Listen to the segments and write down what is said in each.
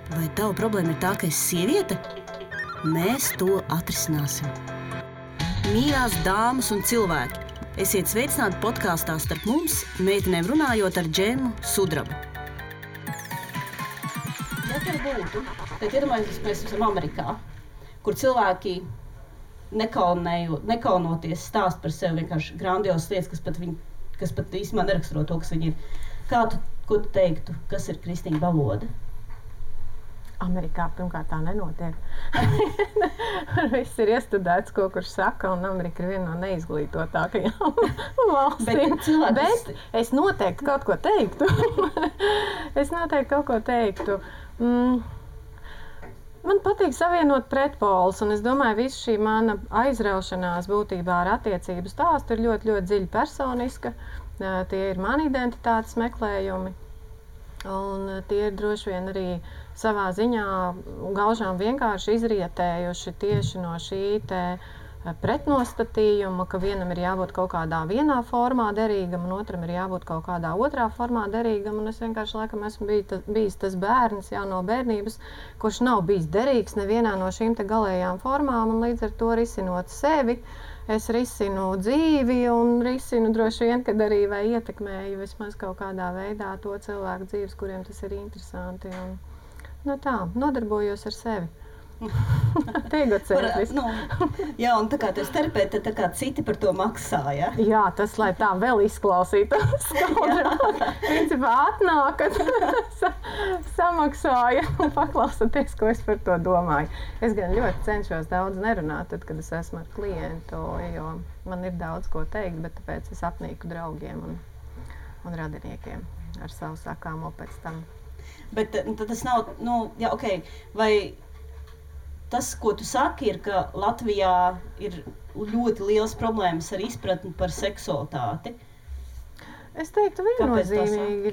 Vai tava problēma ir tā, ka esi sieviete? Mēs to atrisināsim. Mīļās dāmas un cilvēki, esiet sveicināti podkāstā Starp mums, meitenēm runājot ar Džemu Sudrabu. Ja tur būtu, tad iedomājamies, mēs esam Amerikā, kur cilvēki nekaunoties stāst par sevi vienkārši grandiosas lietas, kas pat īstenībā neraksturo to, kas viņi ir. Ko tu teiktu, kas ir kristīga valoda? Amerikā pirmkārt tā nenotiek. Viss ir iestudēts, ko kurš saka, un Amerika ir viena no neizglītotākajām valstīm. Bet es noteikti kaut ko teiktu. Man patīk savienot pretpolus, un es domāju, visu šī mana aizraušanās būtībā ar attiecību stāstu ir ļoti, ļoti dziļi personiska. Tie ir mani identitātes meklējumi, un tie ir droši vien arī savā ziņā gaužām vienkārši izrietējuši tieši no šī te pretnostatījuma, ka vienam ir jābūt kaut kādā vienā formā derīgam, un otram ir jābūt kaut kādā otrā formā derīgam, un es vienkārši laikam esmu bijis tas bērns jau no bērnības, kurš nav bijis derīgs nevienā no šīm te galējām formām, un līdz ar to risinot sevi, es risinu dzīvi un risinu droši vien, kad arī vai ietekmēju vismaz kaut kādā veidā to cilvēku dzīves, kuriem tas ir interesanti. Un, nodarbojos ar sevi. Jā, un tā kā tu esi terapeite, tad tā kā citi par to maksā, ja? Jā, tas, lai tā vēl izklausītos skaudrāk. Principā atnākat, samaksāja un paklausaties, ko es par to domāju. Es gan ļoti cenšos daudz nerunāt, tad, kad es esmu ar klientu, jo man ir daudz ko teikt, bet tāpēc es apnīku draugiem un radiniekiem ar savu sakāmo pēc tam. Bet tad tas nav, vai tas, ko tu saki, ir, ka Latvijā ir ļoti liels problēmas ar izpratni par seksualitāti. Es teiktu viennozīmīgi,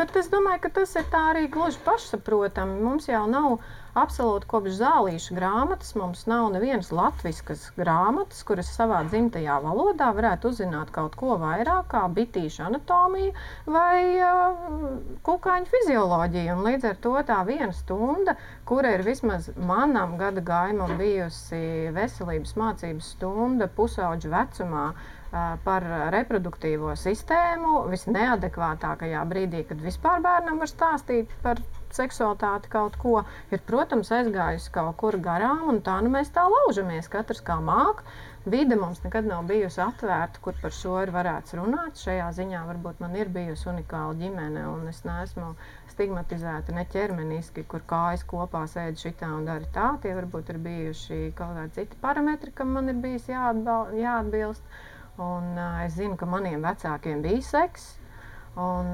bet es domāju, ka tas ir tā arī gluži pašsaprotami. Mums jau nav absolūti kopš zālīšu grāmatas, mums nav nevienas latviskas grāmatas, kuras savā dzimtajā valodā varētu uzzināt kaut ko vairāk kā bitīšu anatomiju vai kukaiņu fizioloģiju. Un līdz ar to tā viena stunda, kura ir vismaz manam gada gājumam bijusi veselības mācības stunda pusauģu vecumā, par reproduktīvo sistēmu visneadekvātākajā brīdī, kad vispār bērnam var stāstīt par seksualitāti kaut ko, ir, protams, aizgājusi kaut kur garām, un tā mēs tā laužamies, katrs kā māk. Vide mums nekad nav bijusi atvērta, kur par šo ir varēts runāt. Šajā ziņā varbūt man ir bijusi unikāla ģimene, un es neesmu stigmatizēta ne ķermeniski, kur kājas kopā sēd šitā un dara tā. Tie varbūt ir bijuši kaut kādi citi parametri, kam man ir bijis jāatbilst. Un es zinu, ka maniem vecākiem bija seks, un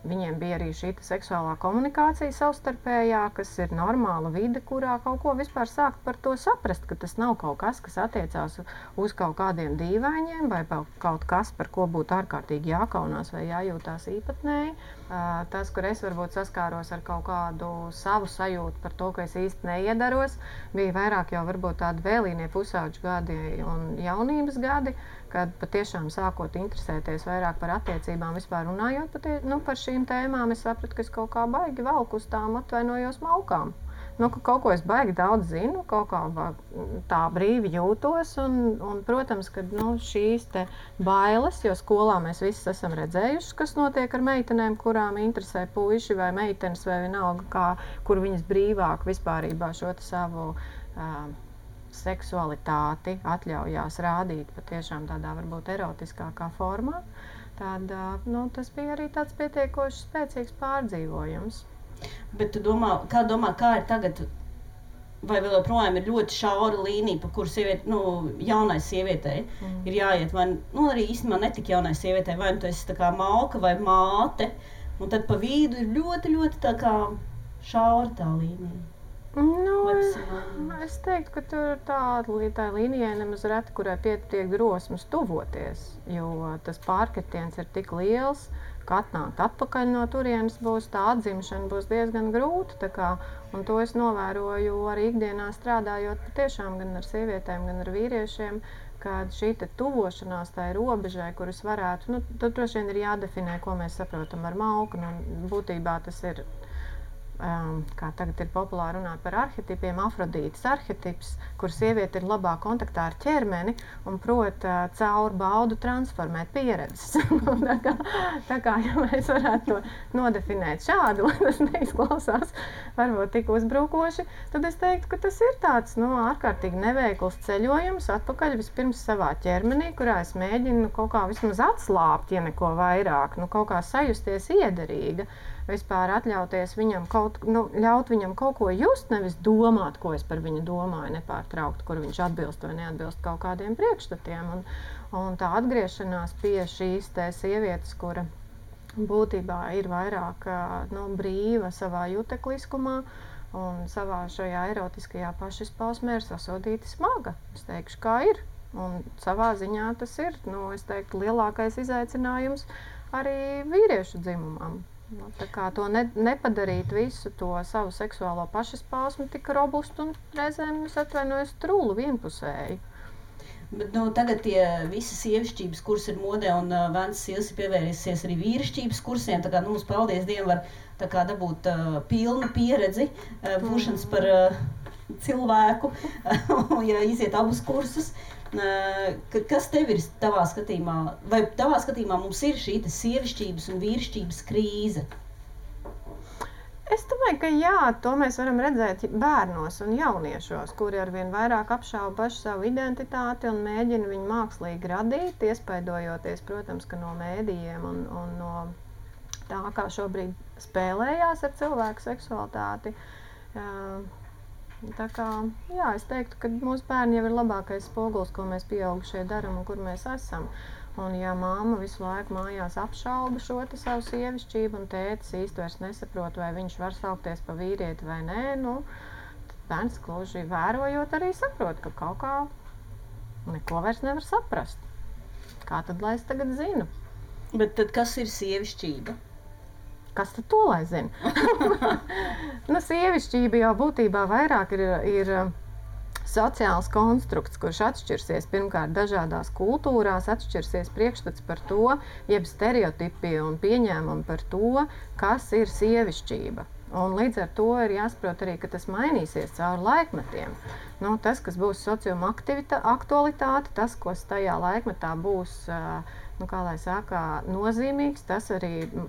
viņiem bija arī šī seksuālā komunikācija savstarpējā, kas ir normāla vide, kurā kaut ko vispār sākt par to saprast, ka tas nav kaut kas, kas attiecās uz kaut kādiem dīvainiem vai kaut kas, par ko būtu ārkārtīgi jākaunās vai jājūtās īpatnēji. Tas, kur es varbūt saskāros ar kaut kādu savu sajūtu par to, ka es īsti neiedaros, bija vairāk jau varbūt tādi vēlīnie pusauģu gadi un jaunības gadi, kad patiešām sākot interesēties vairāk par attiecībām, vispār runājot par šīm tēmām, es sapratu, ka es kaut kā baigi velku uz tām atvainojos malkām. Ka kaut ko es baigi daudz zinu, kaut kā tā brīvi jūtos, un protams, ka šīs te bailes, jo skolā mēs visi esam redzējuši, kas notiek ar meitenēm, kurām interesē puiši vai meitenes vai vienalga, kur viņas brīvāk vispārībā šo savu seksualitāti atļaujās rādīt patiešām tādā varbūt erotiskākā formā, tad tas bija arī tāds pietiekoši spēcīgs pārdzīvojums. Bet tu domā, kā ir tagad, vai vēl joprojām ir ļoti šaura līnija, pa kuru jaunai sievietei ir jāiet, vai arī īstenībā netik jaunai sievietei, vai tu esi tā kā malka vai māte, un tad pa vidu ir ļoti, ļoti tā kā šaura tā līnija. Es teiktu, ka tur tā līnijai nemaz reti, kurai pietiek drosmes tuvoties, jo tas pārkritiens ir tik liels, ka atnākt atpakaļ no turienes tā atzimšana būs diezgan grūta. Un to es novēroju arī ikdienā strādājot patiešām gan ar sievietēm, gan ar vīriešiem, kad šī tuvošanās tai robežai, kuras varētu, tad droši vien ir jādefinē, ko mēs saprotam ar malku. Būtībā tas ir kā tagad ir populāri runāt par arhetipiem, Afrodītes arhetips, kur sieviete ir labā kontaktā ar ķermeni un prot caur baudu transformēt pieredzes. tā kā, ja mēs varētu to nodefinēt šādi, lai tas neizklausās varbūt tik uzbrukoši, tad es teiktu, ka tas ir tāds ārkārtīgi neveikls ceļojums atpakaļ vispirms savā ķermenī, kurā es mēģinu kaut kā vismaz atslāpt, ja neko vairāk, kaut kā sajusties iederīga. Vispār atļauties viņam ļaut viņam kaut ko just, nevis domāt, ko es par viņu domāju, nepārtraukt, kur viņš atbilst vai neatbilst kaut kādiem priekšstatiem. Un tā atgriešanās pie šīs te sievietes, kura būtībā ir vairāk brīva savā jutekliskumā un savā šajā erotiskajā pašizpausmē ir sasodīta smaga. Es teikšu, kā ir. Un savā ziņā tas ir, es teiktu, lielākais izaicinājums arī vīriešu dzimumam. Tā kā to nepadarīt visu to savu seksuālo pašizpausmi tik robustu un reizēm, es atvainojos, trūlu vienpusēji. Bet tagad tie visi sievišķības kursi ir modē un Vēns Sils ir pievērsies arī vīrišķības kursiem, tā kā mums, paldies Dievam, var tā kā dabūt pilnu pieredzi būšanas par cilvēku, ja iziet abus kursus. Kas tev ir tavā skatījumā, vai tavā skatījumā mums ir šī sievišķības un vīrišķības krīze? Es domāju, ka jā, to mēs varam redzēt bērnos un jauniešos, kuri arvien vairāk apšauba pašu savu identitāti un mēģina viņu mākslīgi radīt, iespaidojoties, protams, ka no mēdījiem un no tā, kā šobrīd spēlējās ar cilvēku seksualitāti. Tā kā, jā, es teiktu, ka mūsu bērni jau ir labākais spogulis, ko mēs pieaugušie daram un kur mēs esam. Un ja mamma visu laiku mājās apšauba šo savu sievišķību un tētis īsti vairs nesaprot, vai viņš var saukties pa vīrieti vai nē, tad bērns gluži vērojot arī saprot, ka kaut kā neko vairs nevar saprast. Kā tad, lai es tagad zinu? Bet tad kas ir sievišķība? Kas tad to lai zina? Sievišķība jau būtībā vairāk ir sociāls konstrukts, kurš atšķirsies pirmkārt dažādās kultūrās, atšķirsies priekšstats par to, jeb stereotipi un pieņēmumi par to, kas ir sievišķība. Un līdz ar to ir jāsaprot arī, ka tas mainīsies cauri laikmetiem. Tas, kas būs sociuma aktualitāte, tas, kas tajā laikmetā būs kā lai saka, nozīmīgs,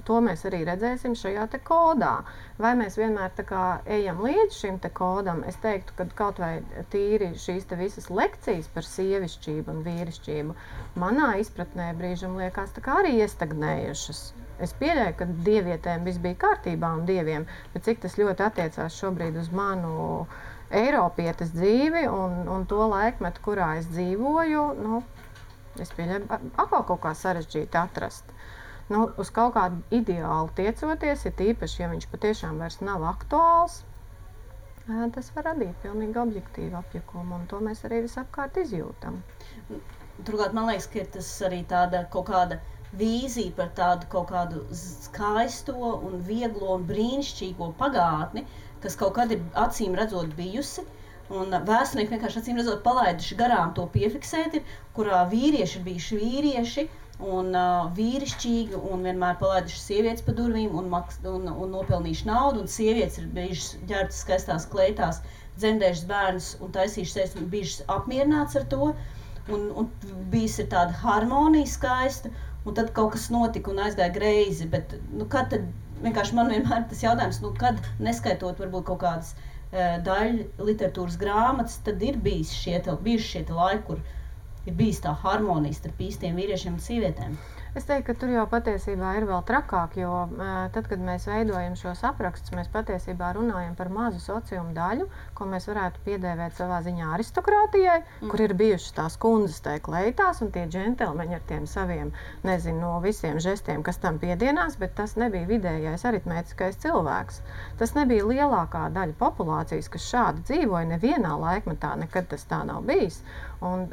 to mēs arī redzēsim šajā te kodā. Vai mēs vienmēr tā kā ejam līdz šim te kodam, es teiktu, ka kaut vai tīri šīs te visas lekcijas par sievišķību un vīrišķību manā izpratnē brīžam liekas tā kā arī iestagnējušas. Es pieļauju, ka dievietēm viss bija kārtībā un dieviem, bet cik tas ļoti attiecās šobrīd uz manu eiropietes dzīvi un to laikmetu, kurā es dzīvoju, es pieļauju, atkal kaut kā sarežģīti atrast. Uz kaut kādu ideālu tiecoties, ir tīpaši, ja viņš patiešām vairs nav aktuāls, tas var radīt pilnīgi objektīvu apjukumu, un to mēs arī visapkārt izjūtam. Turklāt, man liekas, ka ir tas arī tāda kaut kāda vīzija par tādu kaut kādu skaisto un vieglo un brīnišķīgo pagātni, kas kaut kad ir acīm redzot bijusi, un vēsturnieki vienkārši acīm redzot palaiduši garām to piefiksēti, kurā vīrieši ir bijuši vīrieši un vīrišķīgi un vienmēr palaiduši sievietes pa durvīm un nopelnījuši naudu, un sievietes ir bijušas ģērbtas skaistās kleitās, dzemdējušas bērnus un taisījušas sevis un bijušas apmierināts ar to, un bijis ir tāda harmonija skaista, un tad kaut kas notika un aizgāja greizi, bet kad tad, vienkārši man vienmēr tas jautājums, kad neskaitot varbūt kaut kādas daļu literatūras grāmatas, tad ir bijuši šie laiki, kur ir bijis tā harmonija starp īstiem vīriešiem un sievietēm. Es teiktu, ka tur jau patiesībā ir vēl trakāk, jo tad, kad mēs veidojam šos aprakstus, mēs patiesībā runājam par mazu sociumu daļu, ko mēs varētu piedēvēt savā ziņā aristokrātijai, kur ir bijušas tās kundzes tai kleitās un tie džentelmeņi ar tiem saviem, no visiem žestiem, kas tam piedienās, bet tas nebija vidējais aritmētiskais cilvēks. Tas nebija lielākā daļa populācijas, kas šādi dzīvoja nevienā laikmetā, nekad tas tā nav bijis. Un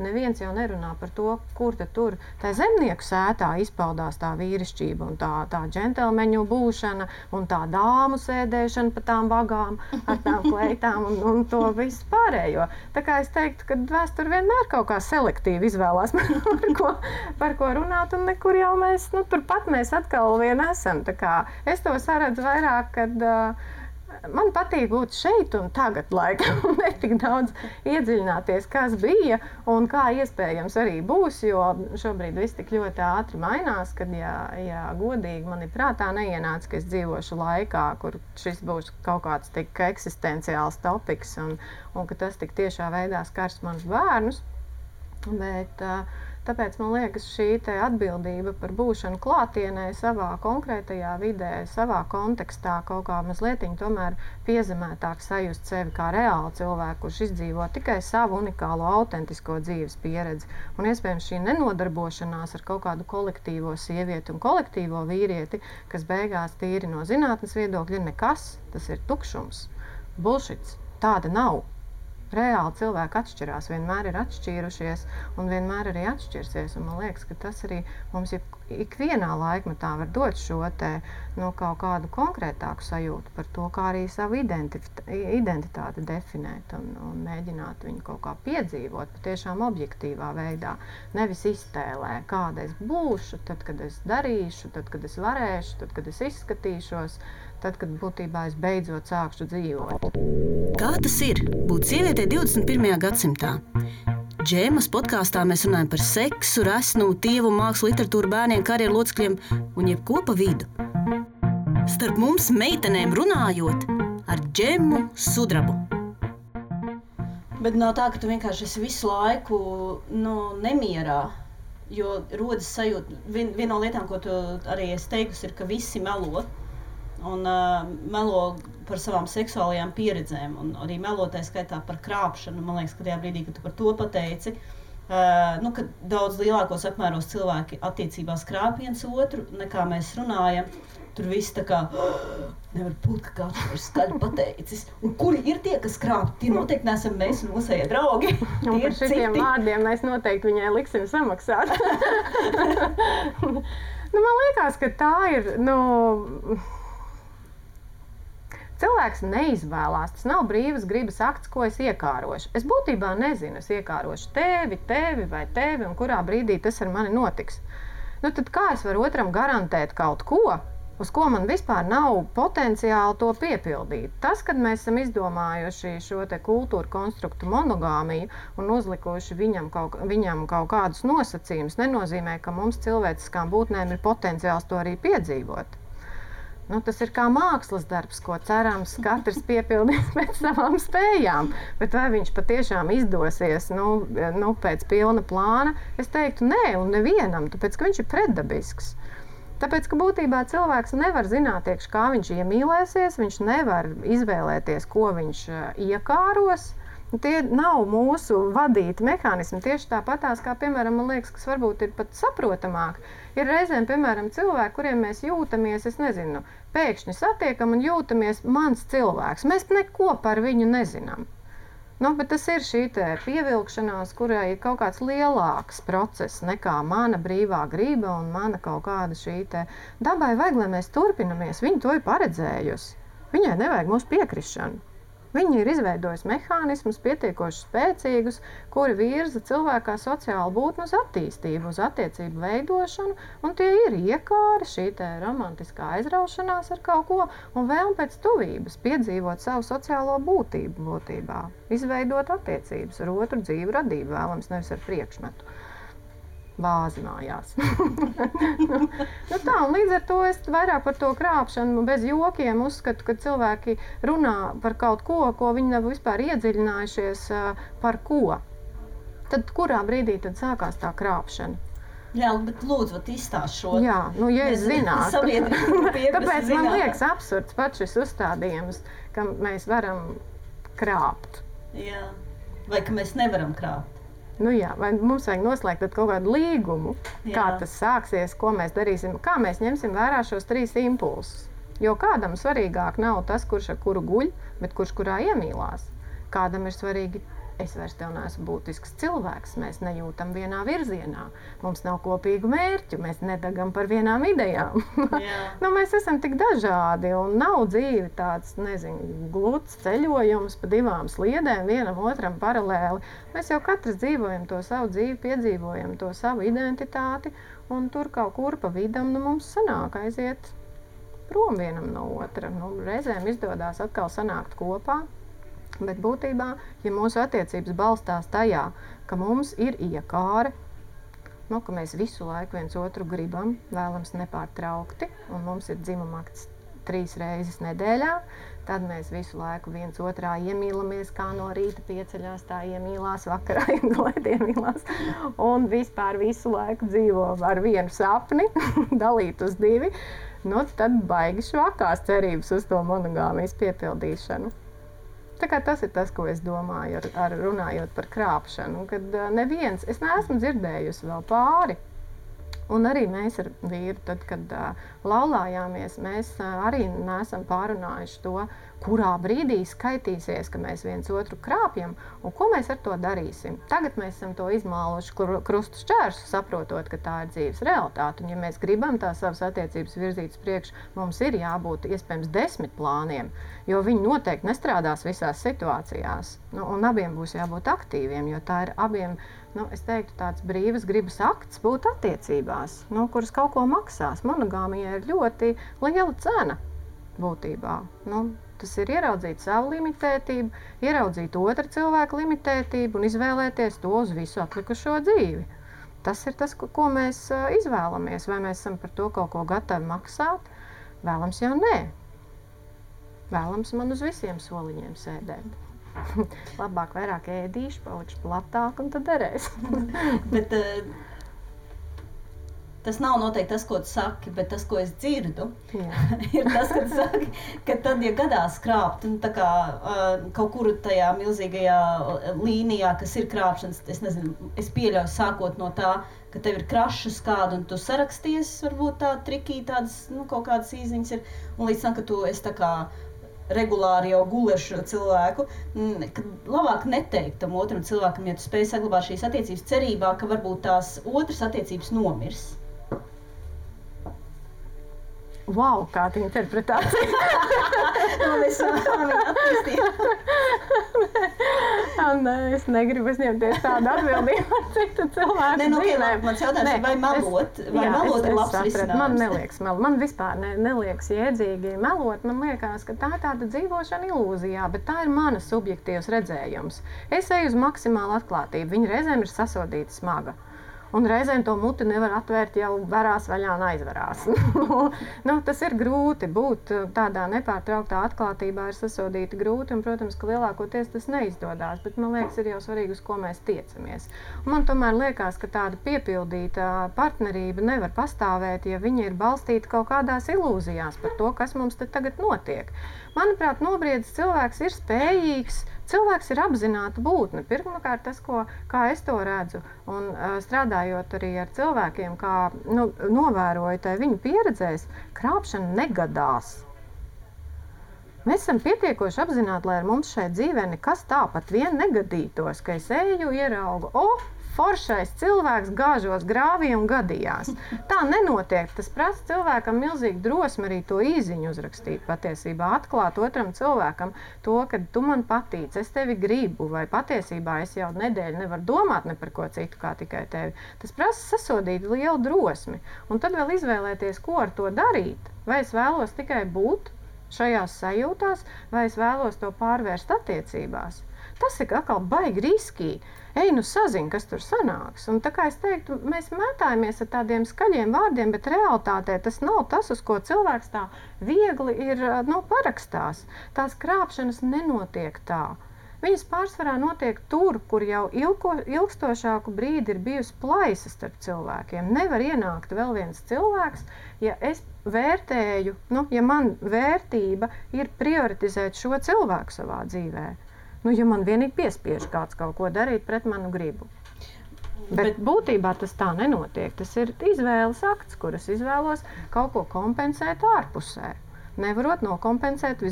neviens jau nerunā par to, kur tad tur tā zemnieku sētā izpaudās tā vīrišķība un tā džentelmeņu būšana un tā dāmu sēdēšana pa tām vagām ar tām kleitām un to visu pārējo. Tā kā es teiktu, ka vēsture vienmēr kaut kā selektīvi izvēlās par ko runāt, un nekur jau mēs, turpat mēs atkal vien esam. Tā kā es to saredzu vairāk, kad man patīk būt šeit un tagad laikam, un ne tik daudz iedziļināties, kas bija un kā iespējams arī būs, jo šobrīd viss tik ļoti ātri mainās, kad, ja godīgi man ir prātā neienāca, ka es dzīvošu laikā, kur šis būs kaut kāds tik eksistenciāls topiks un ka tas tik tiešā veidā skars manus bērnus. Bet tāpēc man liekas, šī te atbildība par būšanu klātienē savā konkrētajā vidē, savā kontekstā kaut kā mazlietiņ tomēr piezemētāk sajust sevi kā reāli cilvēku, kurš izdzīvo tikai savu unikālo, autentisko dzīves pieredzi. Un iespējams šī nenodarbošanās ar kaut kādu kolektīvo sievieti un kolektīvo vīrieti, kas beigās tīri no zinātnes viedokļa ir nekas, tas ir tukšums, bullshits, tāda nav. Reāli cilvēki atšķirās, vienmēr ir atšķīrušies un vienmēr arī atšķirsies. Un man liekas, ka tas arī mums ikvienā laikmetā var dot šo te, kaut kādu konkrētāku sajūtu par to, kā arī savu identitāti definēt un mēģināt viņu kaut kā piedzīvot patiešām objektīvā veidā. Nevis iztēlē, kāda es būšu, tad, kad es darīšu, tad, kad es varēšu, tad, kad es izskatīšos, tad, kad būtībā es beidzot sākšu dzīvot. Kā tas ir būt sievietei 21. gadsimtā? Džēmas podkāstā mēs runājam par seksu, resnumu, tievumu, mākslu, literatūru, bērniem, karjeru locekļiem un jebko pa vidu. Starp mums meitenēm runājot ar Džemu Sudrabu. Bet nav tā, ka tu vienkārši esi visu laiku nemierā, jo rodas sajūta. Viena no lietām, ko tu arī esi teikusi, ir, ka visi melo. Un melo par savām seksuālajām pieredzēm, un arī melotai skaitā par krāpšanu. Man liekas, ka tajā brīdī, kad tu par to pateici, ka daudz lielākos apmēros cilvēki attiecībās krāp viens otru, nekā mēs runājam. Tur viss tā kā nevar būt, ka kāds ir skaļi pateicis. Un kuri ir tie, kas krāp? Tie noteikti neesam mēs un mūsējie draugi. Un par šitiem vārdiem mēs noteikti viņai liksim samaksāt. Man liekas, ka tā ir, cilvēks neizvēlās, tas nav brīvas gribas akts, ko es iekārošu. Es būtībā nezinu, es iekārošu tevi vai tevi, un kurā brīdī tas ar mani notiks. Tad kā es varu otram garantēt kaut ko, uz ko man vispār nav potenciāli to piepildīt? Tas, kad mēs esam izdomājuši šo te kultūru konstruktu monogāmiju un uzlikuši viņam kaut kādus nosacījumus, nenozīmē, ka mums cilvēciskām būtnēm ir potenciāls to arī piedzīvot. Tas ir kā mākslas darbs, ko cerams katrs piepildīs pēc savām spējām. Bet vai viņš patiešām izdosies pēc pilna plāna? Es teiktu nē, un nevienam, tāpēc, ka viņš ir pretdabisks. Tāpēc, ka būtībā cilvēks nevar zināt, kā viņš iemīlēsies, viņš nevar izvēlēties, ko viņš iekāros. Tie nav mūsu vadīti mehānismi. Tieši tāpatās, kā, piemēram, man liekas, kas varbūt ir pat saprotamāk. Ir reizēm, piemēram, cilvēki, kuriem mēs jūtamies, pēkšņi satiekam un jūtamies mans cilvēks. Mēs neko par viņu nezinām. Bet tas ir šī pievilkšanās, kurai ir kaut kāds lielāks process nekā mana brīvā griba un mana kaut kāda šī dabai vajag, lai mēs turpinamies. Viņa to ir paredzējusi. Viņai nevajag mūsu piekrišanu. Viņi ir izveidojuši mehānismus pietiekoši spēcīgus, kuri virza cilvēkā sociālu būtni uz attīstību, uz attiecību veidošanu, un tie ir iekāri, šī romantiskā aizraušanās ar kaut ko, un vēlme pēc tuvības, piedzīvot savu sociālo būtību būtībā, izveidot attiecības ar otru dzīvu radību, vēlams nevis ar priekšmetu. Bāzi mājās. Tā, un līdz ar to es vairāk par to krāpšanu bez jokiem uzskatu, ka cilvēki runā par kaut ko, ko viņi nav vispār iedziļinājušies par ko. Tad kurā brīdī tad sākās tā krāpšana? Jā, bet lūdzu, izstāst šo. Jā, ja es zinātu. Tāpēc man liekas absurds pats šis uzstādījums, ka mēs varam krāpt. Jā, vai ka mēs nevaram krāpt. Vai mums vajag noslēgt kaut kādu līgumu, kā tas sāksies, ko mēs darīsim, kā mēs ņemsim vērā šos 3 impulsus. Jo kādam svarīgāk nav tas, kurš ar kuru guļ, bet kurš kurā iemīlās. Kādam ir svarīgi Es vairs tev neesmu būtisks cilvēks, mēs nejūtam vienā virzienā, mums nav kopīgu mērķu, mēs nedagam par vienām idejām. Mēs esam tik dažādi un nav dzīve tāds, gluds ceļojums pa divām sliedēm, vienam otram paralēli. Mēs jau katrs dzīvojam to savu dzīvi, piedzīvojam to savu identitāti un tur kaut kur pa vidam mums sanāk aiziet prom vienam no otra. Reizēm izdodās atkal sanākt kopā. Bet būtībā, ja mūsu attiecības balstās tajā, ka mums ir iekāre, ka mēs visu laiku viens otru gribam, vēlams nepārtraukti, un mums ir dzimumakts 3 reizes nedēļā, tad mēs visu laiku viens otrā iemīlamies, kā no rīta pieceļās, tā iemīlās, vakarā iemīlās, un vispār visu laiku dzīvo ar vienu sapni, dalīt uz 2, tad baigi švakās cerības uz to monogāmijas piepildīšanu. Tā kā tas ir tas, ko es domāju, runājot par krāpšanu, kad neviens, es neesmu dzirdējusi vēl pāri. Un arī mēs ar vīru, tad, kad laulājāmies, mēs arī neesam pārunājuši to, kurā brīdī skaitīsies, ka mēs viens otru krāpjam un ko mēs ar to darīsim. Tagad mēs esam to izmāluši krustu šķērsu, saprotot, ka tā ir dzīves realitāte. Un ja mēs gribam tā savas attiecības virzīt uz priekšu, mums ir jābūt iespējams 10 plāniem, jo viņi noteikti nestrādās visās situācijās. Un abiem būs jābūt aktīviem, jo tā ir abiem, es teiktu, tāds brīvas gribas akts būt attiecībās, kuras kaut ko maksās. Monogāmijai ir ļoti liela cena būtībā. Tas ir ieraudzīt savu limitētību, ieraudzīt otra cilvēka limitētību un izvēlēties to uz visu atlikušo dzīvi. Tas ir tas, ko mēs izvēlamies. Vai mēs esam par to kaut ko gatavi maksāt? Vēlams jau nē. Vēlams man uz visiem soliņiem sēdēt. Labāk vairāk ēdīšu, palikšu platāk un tad derēs. Bet tas nav noteikti tas, ko tu saki, bet tas, ko es dzirdu, ir tas, ka tu saki, ka tad, ja gadās krāpt, kaut kur tajā milzīgajā līnijā, kas ir krāpšanas, es pieļauju sākot no tā, ka tev ir krašas kādu un tu saraksties, varbūt tā trikī tādas, kaut kādas īziņas ir, un līdz tam, ka tu esi tā kā regulāri jau guli ar šo cilvēku, ka labāk neteikt tam otram cilvēkam, ja tu spēj saglabāt šīs attiecības cerībā, ka varbūt tās otras attiecības nomirs. Wow, kāda interpretācija! Es negribu uzņemties tādu atbildību ar citu cilvēku dzīvēm. Mans jautājums ir, vai melot ir labs risinājums? Man neliekas melot. Man vispār neliekas jēdzīgi melot. Man liekas, ka tā ir tāda dzīvošana ilūzijā, bet tā ir mana subjektīvs redzējums. Es eju uz maksimālu atklātību. Viņa reizēm ir sasodīta smaga. Un reizēm to muti nevar atvērt, jau varās vaļā un aizvarās. Tas ir grūti būt tādā nepārtrauktā atklātībā, ir sasodīti grūti, un, protams, ka lielākoties tas neizdodās, bet man liekas, ir jau svarīgi, uz ko mēs tiecamies. Un man tomēr liekas, ka tāda piepildīta partnerība nevar pastāvēt, ja viņa ir balstīta kaut kādās ilūzijās par to, kas mums te tagad notiek. Manuprāt, nobriedzis cilvēks ir spējīgs, cilvēks ir apzināta būtne. Pirmkārt, tas, kā es to redzu, un strādājot arī ar cilvēkiem, kā novēroju tai viņu pieredzēs, krāpšana negadās. Mēs esam pietiekoši apzināti, lai ar mums šai dzīvē nekas tāpat vien negadītos, ka es eju, ieraugu, foršais cilvēks gāžos grāvī un gadījās. Tā nenotiek. Tas prasa cilvēkam milzīgi drosmi arī to īziņu uzrakstīt patiesībā, atklāt otram cilvēkam to, ka tu man patīc, es tevi gribu, vai patiesībā es jau nedēļu nevaru domāt ne par ko citu kā tikai tevi. Tas prasa sasodīt lielu drosmi. Un tad vēl izvēlēties, ko ar to darīt. Vai es vēlos tikai būt šajās sajūtās, vai es vēlos to pārvērst attiecībās. Tas ir atkal baigi riskīgi. Ej, sazini, kas tur sanāks. Un tā kā es teiktu, mēs mētājamies ar tādiem skaļiem vārdiem, bet realitātē tas nav tas, uz ko cilvēks tā viegli ir parakstās. Tās krāpšanas nenotiek tā. Viņas pārsvarā notiek tur, kur jau ilgstošāku brīdi ir bijusi plaisa starp cilvēkiem. Nevar ienākt vēl viens cilvēks, ja es vērtēju, ja man vērtība ir prioritizēt šo cilvēku savā dzīvē. Ja man vienīgi piespiež kāds kaut ko darīt pret manu gribu. Bet būtībā tas tā nenotiek. Tas ir izvēles akts, kuras izvēlos kaut ko kompensēt ārpusē. Nevarot nokompensēt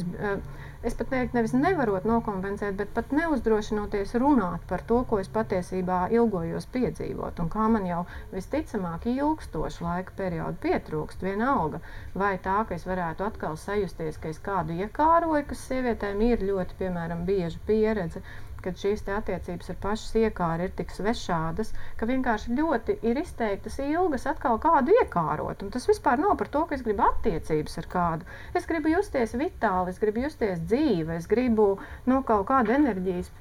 es pat teiktu, nevis nevarot nokompensēt, bet pat neuzdrošinoties runāt par to, ko es patiesībā ilgojos piedzīvot. Un kā man jau visticamāk ilgstošu laika periodu pietrūkst vienalga, vai tā, ka es varētu atkal sajusties, ka es kādu iekāroju, kas sievietēm ir ļoti, piemēram, bieža pieredze, kad šīs te attiecības ar pašas iekāri ir tik svešādas, ka vienkārši ļoti ir izteiktas ilgas atkal kādu iekārot. Un tas vispār nav par to, ka es gribu attiecības ar kādu. Es gribu justies vitāli, es gribu justies dzīve, es gribu kaut kādu enerģijas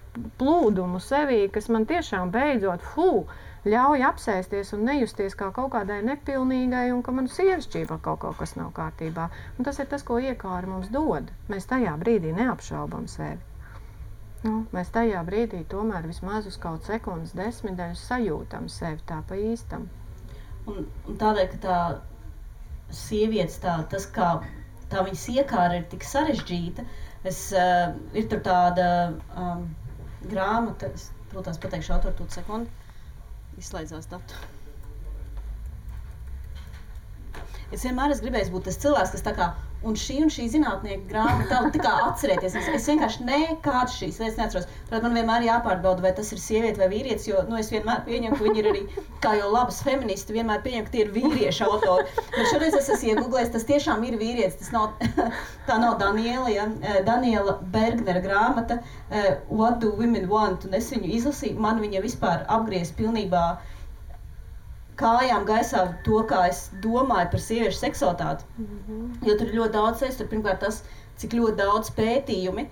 plūdumu sevī, kas man tiešām beidzot, ļauj apsēsties un nejusties kā kaut kādai nepilnīgai un ka manu sievišķībā kaut kas nav kārtībā. Un tas ir tas, ko iekāri mums dod. Mēs tajā brīdī neapšaubam sevi. Mēs tajā brīdī tomēr vismaz uz kaut sekundes desmitdaļus sajūtam sevi tā pa īstam. Un tādēļ, ka tā sievietes, tas kā tā viņas iekāra ir tik sarežģīta, ir tur tāda grāmata, es, protams, pateikšu autoru tūt sekundi, izslēdzās datu. Es vienmēr esmu gribējis būt tas cilvēks, kas tā kā, un šī zinātnieka grāmata, tā kā atcerēties. Es vienkārši nekādas šīs lietas neatceros. Tāpēc man vienmēr jāpārbauda, vai tas ir sieviete vai vīrietis, jo es vienmēr pieņemu, ka viņi ir arī, kā jau labas feministi, vienmēr pieņemu, ka tie ir vīrieši autori. Bet šoreiz es esmu iegooglējis, tas tiešām ir vīrietis. Tas nav, tā nav Daniela Bergnera grāmata What do women want? Un es viņu izlasīju, man viņa vispār apgriez pilnībā kājām gaisā to, kā es domāju par sieviešu seksualitāti. Jo tur ir ļoti daudz tur pirmkārt tas, cik ļoti daudz pētījumi,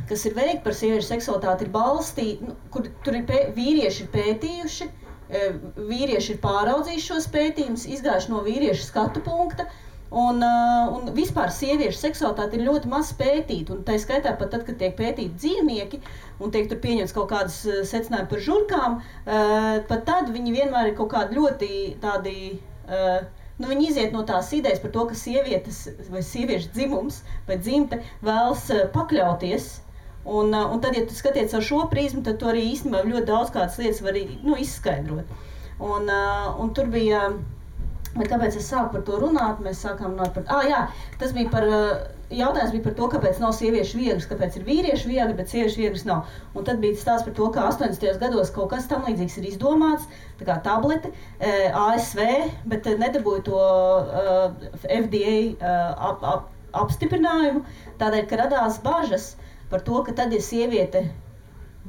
kas ir veikti par sieviešu seksualitāti, ir balstīti, kur tur ir vīrieši ir pētījuši, vīrieši ir pāraudzījuši šos pētījumus, izgājuši no vīriešu skatu punkta, un vispār sieviešu seksualitāte ir ļoti maz pētīta, un tā skaitā pat tad, kad tiek pētīti dzīvnieki, un tiek tur pieņemts kaut kādas secinājumi par žurkām, pat tad viņi vienmēr ir kaut kādi ļoti tādi, viņi iziet no tās idejas par to, ka sievietes vai sieviešu dzimums vai dzimte vēlas pakļauties, un tad, ja tu skaties ar šo prizmu, tad tu arī īstenībā ļoti daudz kādas lietas var izskaidrot. Un tur bija, bet kāpēc es sāku par to runāt? Mēs sākām runāt par, tas bija par, jautājums bija par to, kāpēc nav sieviešu viegras, kāpēc ir vīriešu viegri, bet sieviešu viegras nav. Un tad bija stāsts par to, ka 80. gados kaut kas tam līdzīgs ir izdomāts, tā kā tablete, ASV, bet nedabūja to FDA apstiprinājumu, tādēļ, ka radās bažas par to, ka tad, ja sieviete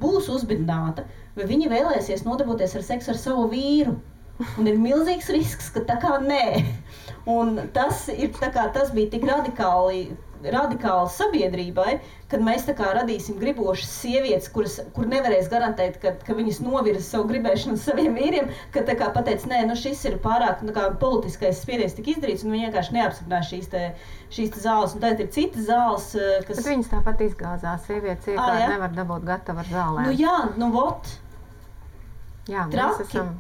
būs uzbidināta, vai viņa vēlēsies nodarboties ar seksu ar savu vīru. Un ir milzīgs risks, ka tā kā nē. Un tas bija tik radikāli sabiedrībai, kad mēs tā kā radīsim gribošas sievietes, kur nevarēs garantēt, ka viņas novirza savu gribēšanu saviem vīriem, ka tā kā pateic, nē, šis ir pārāk politiskais spiediens tik izdarīts, un viņi vienkārši neapstiprinās šīs te zāles. Un tad ir citas zāles, kas... Bet viņas tāpat izgāzās, sievietes iekārt nevar dabūt gatavu ar zālēm. Vot. Jā, mēs esam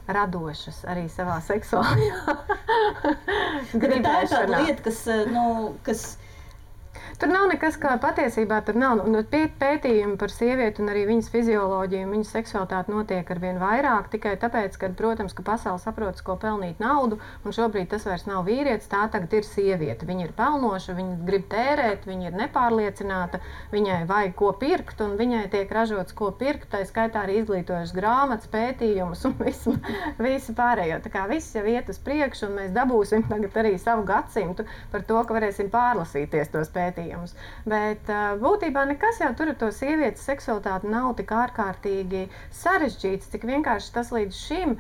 radošas arī savā seksuālajā gribēšanā. Tā ir tāda lieta, kas Tur nav nekas, kā patiesībā tur nav. Pētījumi par sievieti un arī viņas fizioloģiju un viņas seksualitāti notiek arvien vairāk, tikai tāpēc, ka, protams, ka pasaule saprotas, ko pelnīt naudu, un šobrīd tas vairs nav vīrietis, tā tagad ir sieviete. Viņa ir pelnoša, viņa grib tērēt, viņa ir nepārliecināta, viņai vajag ko pirkt, un viņai tiek ražots ko pirkt, tā skaitā arī izglītojušas grāmatas, pētījumus un visu pārējo. Tā kā viss jau iet uz priekšu, un mēs dabūsim tagad arī savu gadsimtu par to, ka varēsim pārlasīties tos pētījumus. Bet būtībā nekas jau tur ar to sievietes seksualitāti nav tik ārkārtīgi sarežģīts, cik vienkārši tas līdz šim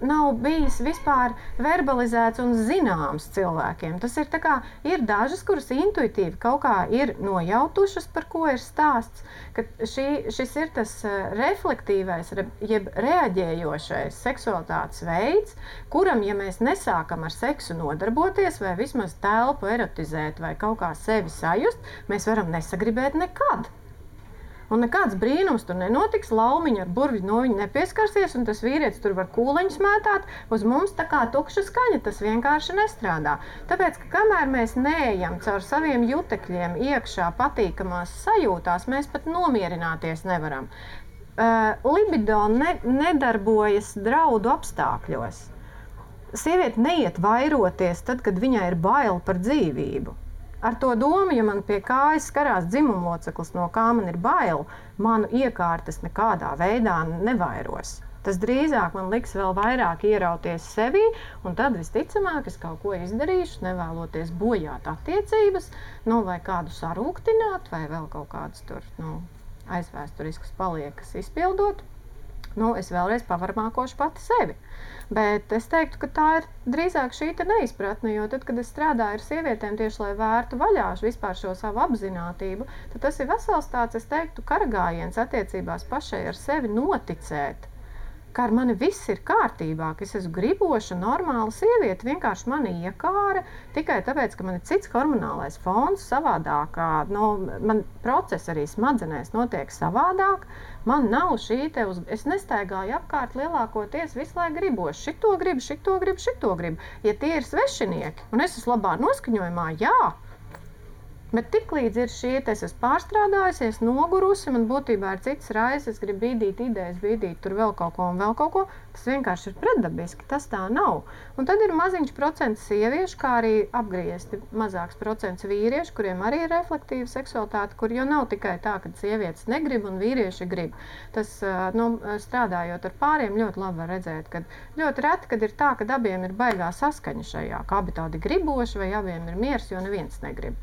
nav bijis vispār verbalizēts un zināms cilvēkiem. Tas ir tā kā, ir dažas, kuras intuitīvi kaut kā ir nojautušas, par ko ir stāsts, ka šis ir tas reflektīvais, jeb reaģējošais seksualitātes veids, kuram, ja mēs nesākam ar seksu nodarboties vai vismaz telpu erotizēt vai kaut kā sevi sajust, mēs varam nesagribēt nekad. Un nekāds brīnums tur nenotiks, laumiņa ar burvi no viņa nepieskarsies, un tas vīrietis tur var kūleņus mētāt, uz mums tā kā tukša skaņa, tas vienkārši nestrādā. Tāpēc, ka kamēr mēs neejam caur saviem jutekļiem iekšā patīkamās sajūtās, mēs pat nomierināties nevaram. Libido nedarbojas draudu apstākļos. Sieviete neiet vairoties tad, kad viņai ir bail par dzīvību. ar to domu, ja man pie kājas skarās dzimumloceklis, no kā man ir bail, manu iekārtas nekādā veidā nevairos. Tas drīzāk man liks vēl vairāk ierauties sevī, un tad visticamāk es kaut ko izdarīšu, nevēloties bojāt attiecības, vai kādu sarūktināt, vai vēl kaut kādus tur, aizvēsturiskas paliekas izpildot. Es vēlreiz pavarmākošu pati sevi. Bet es teiktu, ka tā ir drīzāk šī neizpratne, jo tad, kad es strādāju ar sievietēm tieši, lai vērtu vaļā vispār šo savu apzinātību, tad tas ir vesels tāds, es teiktu, karagājiens attiecībās pašai ar sevi noticēt, ka ar mani viss ir kārtībā, ka es esmu griboša, normāla sieviete, vienkārši mani iekāra, tikai tāpēc, ka man ir cits hormonālais fons savādāk, man process arī smadzenēs notiek savādāk, man nav es nestaigāju apkārt lielākoties visu laiku griboši, šito gribu, ja tie ir svešinieki, un es esmu labā noskaņojumā, jā. Bet tiklīdz ir es esmu pārstrādājusies, nogurusi, man būtībā ir cits raizes, es gribu bīdīt idejas, bīdīt tur vēl kaut ko, tas vienkārši ir pretdabiski, tas tā nav. Un tad ir maziņš procents sieviešu, kā arī apgriezti mazāks procents vīriešu, kuriem arī ir reflektīva seksualitāte, kur jau nav tikai tā, ka sievietes negrib un vīrieši grib. Tas, strādājot ar pāriem, ļoti labi var redzēt, ka ļoti reti, kad ir tā, ka abiem ir baigā saskaņa šajā, ka abi tādi griboši vai abiem ir miers, jo neviens negrib.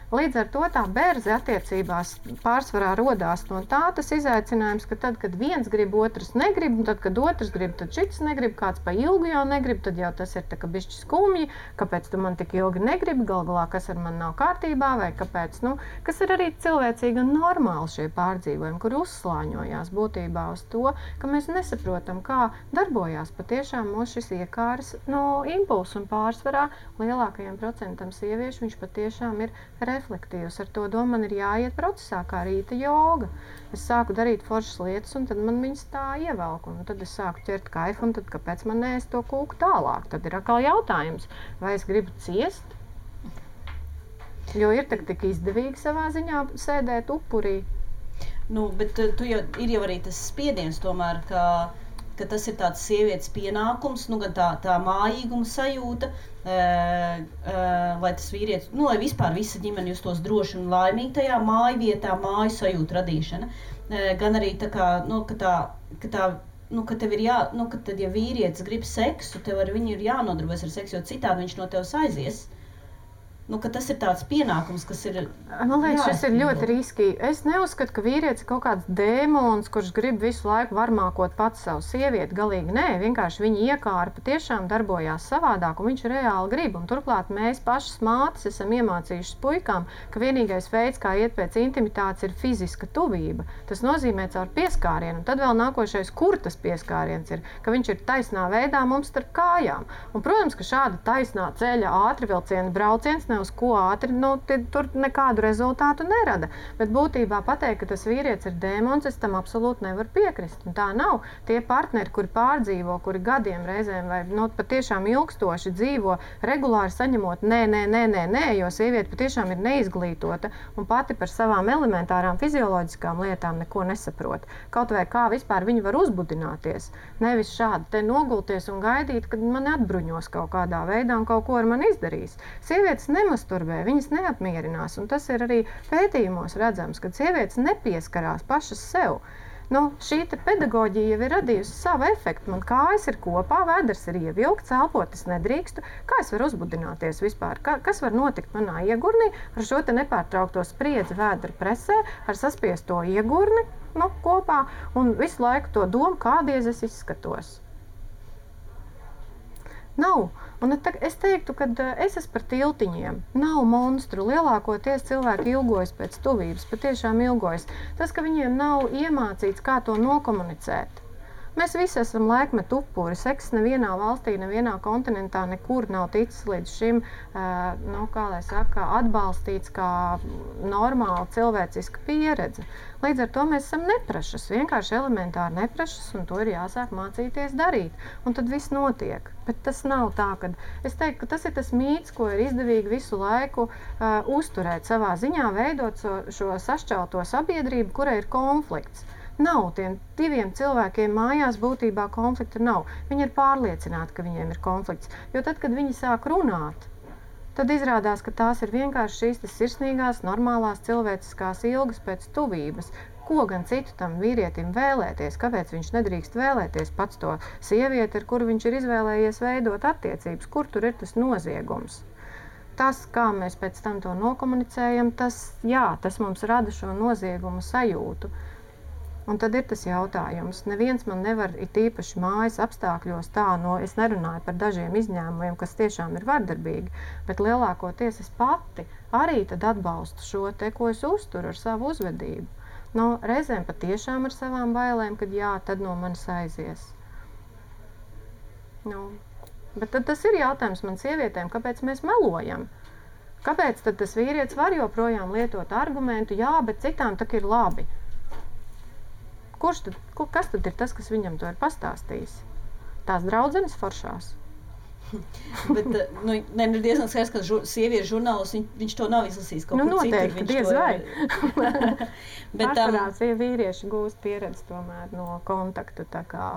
Līdz ar to tā berze attiecībās pārsvarā rodās no tā tas izaicinājums, ka tad, kad viens grib, otrs negrib, un tad, kad otrs grib, tad šits negrib, kāds pa ilgu jau negrib, tad jau tas ir tā kā bišķi skumji, kāpēc tu man tik ilgi negribi, galā, kas ar mani nav kārtībā, vai kāpēc, kas ir arī cilvēcīgi un normāli šie pārdzīvojumi, kur uzslāņojās būtībā uz to, ka mēs nesaprotam, kā darbojās patiešām mūs šis iekāras impulss un pārsvarā lielākajiem procentam sieviešu viņš patiešām ir reflektīvs. Ar to domu man ir jāiet procesā, kā rīta joga. Es sāku darīt foršas lietas, un tad man viņas tā ievelk, un tad es sāku ķert kaifu, un tad kāpēc man neēst to kūku tālāk? Tad ir atkal jautājums, vai es gribu ciest? Jo ir tik izdevīgi savā ziņā sēdēt upurī. Bet ir jau arī tas spiediens tomēr, ka tas ir tāds sievietes pienākums, gan tā mājīguma sajūta, lai tas vīrietis, lai vispār visa ģimene justos droši un laimīgi tajā mājvietā, māju sajūtu radīšana. Gan arī tā kā, ka tev ir ka tad, ja vīrietis grib seksu, tev ar viņu ir jānodarbojas ar seksu, jo citādi viņš no tevis aizies. Ka tas ir tāds pienākums, kas ir... Man liekas, šis ir ļoti riskīgi. Es neuzskatu, ka vīrietis ir kaut kāds dēmons, kurš grib visu laiku varmākot pats savu sievieti. Galīgi nē, vienkārši viņa iekāra patiešām darbojās savādāk, un viņš reāli grib. Un turklāt mēs pašas mātes esam iemācījušas puikām, ka vienīgais veids, kā iet pēc intimitātes, ir fiziska tuvība. Tas nozīmē caur pieskārienu. Un tad vēl nākošais, kur tas pieskāriens ir, ka viņš ir taisnā veidā mums starp kājām. Un, protams, ka šāda taisnā ceļa ātrvilciena brauciens uz ko ātri, tur nekādu rezultātu nerada. Bet būtībā pateikt, ka tas vīrietis ir dēmons, es tam absolūti nevaru piekrist. Un tā nav. Tie partneri, kuri pārdzīvo, kuri gadiem reizēm vai patiešām ilgstoši dzīvo, regulāri saņemot nē, jo sieviete patiešām ir neizglītota un pati par savām elementārām fizioloģiskām lietām neko nesaprot. Kaut vai kā vispār viņi var uzbudināties. Nevis šādi te nogulties un gaidīt, kad mani atbruņos kaut kādā veidā un kaut ko ar mani izdarīs. Sievietes nemasturbē, viņas neapmierinās, un tas ir arī pētījumos redzams, kad sievietes nepieskarās pašas sev. Šī pedagoģija jau ir radījusi savu efektu. Man kājas ir kopā, vēders ir ievilkts, elpot es nedrīkstu. Kā es varu uzbudināties vispār? Kas var notikt manā iegurnī ar šo te nepārtraukto spriedzi vēdra presē, ar saspiesto iegurni kopā un visu laiku to domu, kādies es izskatos? Nav. Un es teiktu, ka es esmu par tiltiņiem. Nav monstru. Lielākoties cilvēki ilgojas pēc tuvības, patiešām ilgojas. Tas, ka viņiem nav iemācīts, kā to nokomunicēt. Mēs visi esam laikmetu upuri. Seks nevienā valstī, nevienā kontinentā nekur nav ticis līdz šim, atbalstīts kā normāla cilvēciska pieredze. Līdz ar to mēs esam neprašas, vienkārši elementāri neprašas, un to ir jāsāk mācīties darīt. Un tad viss notiek. Bet tas nav tā, ka es teiktu, ka tas ir tas mīts, ko ir izdevīgi visu laiku uzturēt savā ziņā, veidot šo sašķelto sabiedrību, kurai ir konflikts. Nav tiem diviem cilvēkiem mājās būtībā konflikta nav. Viņi ir pārliecināti, ka viņiem ir konflikts. Jo tad, kad viņi sāk runāt, tad izrādās, ka tās ir vienkārši šīs sirsnīgās, normālās cilvēciskās ilgas pēc tuvības. Ko gan citu tam vīrietim vēlēties, kāpēc viņš nedrīkst vēlēties pats to sievieti, ar kuru viņš ir izvēlējies veidot attiecības, kur tur ir tas noziegums. Tas, kā mēs pēc tam to nokomunicējam, tas mums rada šo noziegumu sajūtu. Un tad ir tas jautājums. Neviens man nevar it īpaši mājas apstākļos es nerunāju par dažiem izņēmumiem, kas tiešām ir vardarbīgi, bet lielākoties es pati arī tad atbalstu šo te, ko es uzturu ar savu uzvedību. Reizēm patiešām ar savām bailēm, kad tad no manis aizies. Bet tad tas ir jautājums man sievietēm, kāpēc mēs melojam? Kāpēc tad tas vīrietis var joprojām lietot argumentu, bet citām tak ir labi? Kas tad ir tas, kas viņam to ir pastāstījis? Tās draudzenes foršās. Bet ir diezgan skaidrs, ka sieviešu žurnāls viņš to nav izlasījis kaut kur citur. Noteikti, diez vai. Pārsvarās vīrieši gūst pieredzi tomēr no kontaktu, tā kā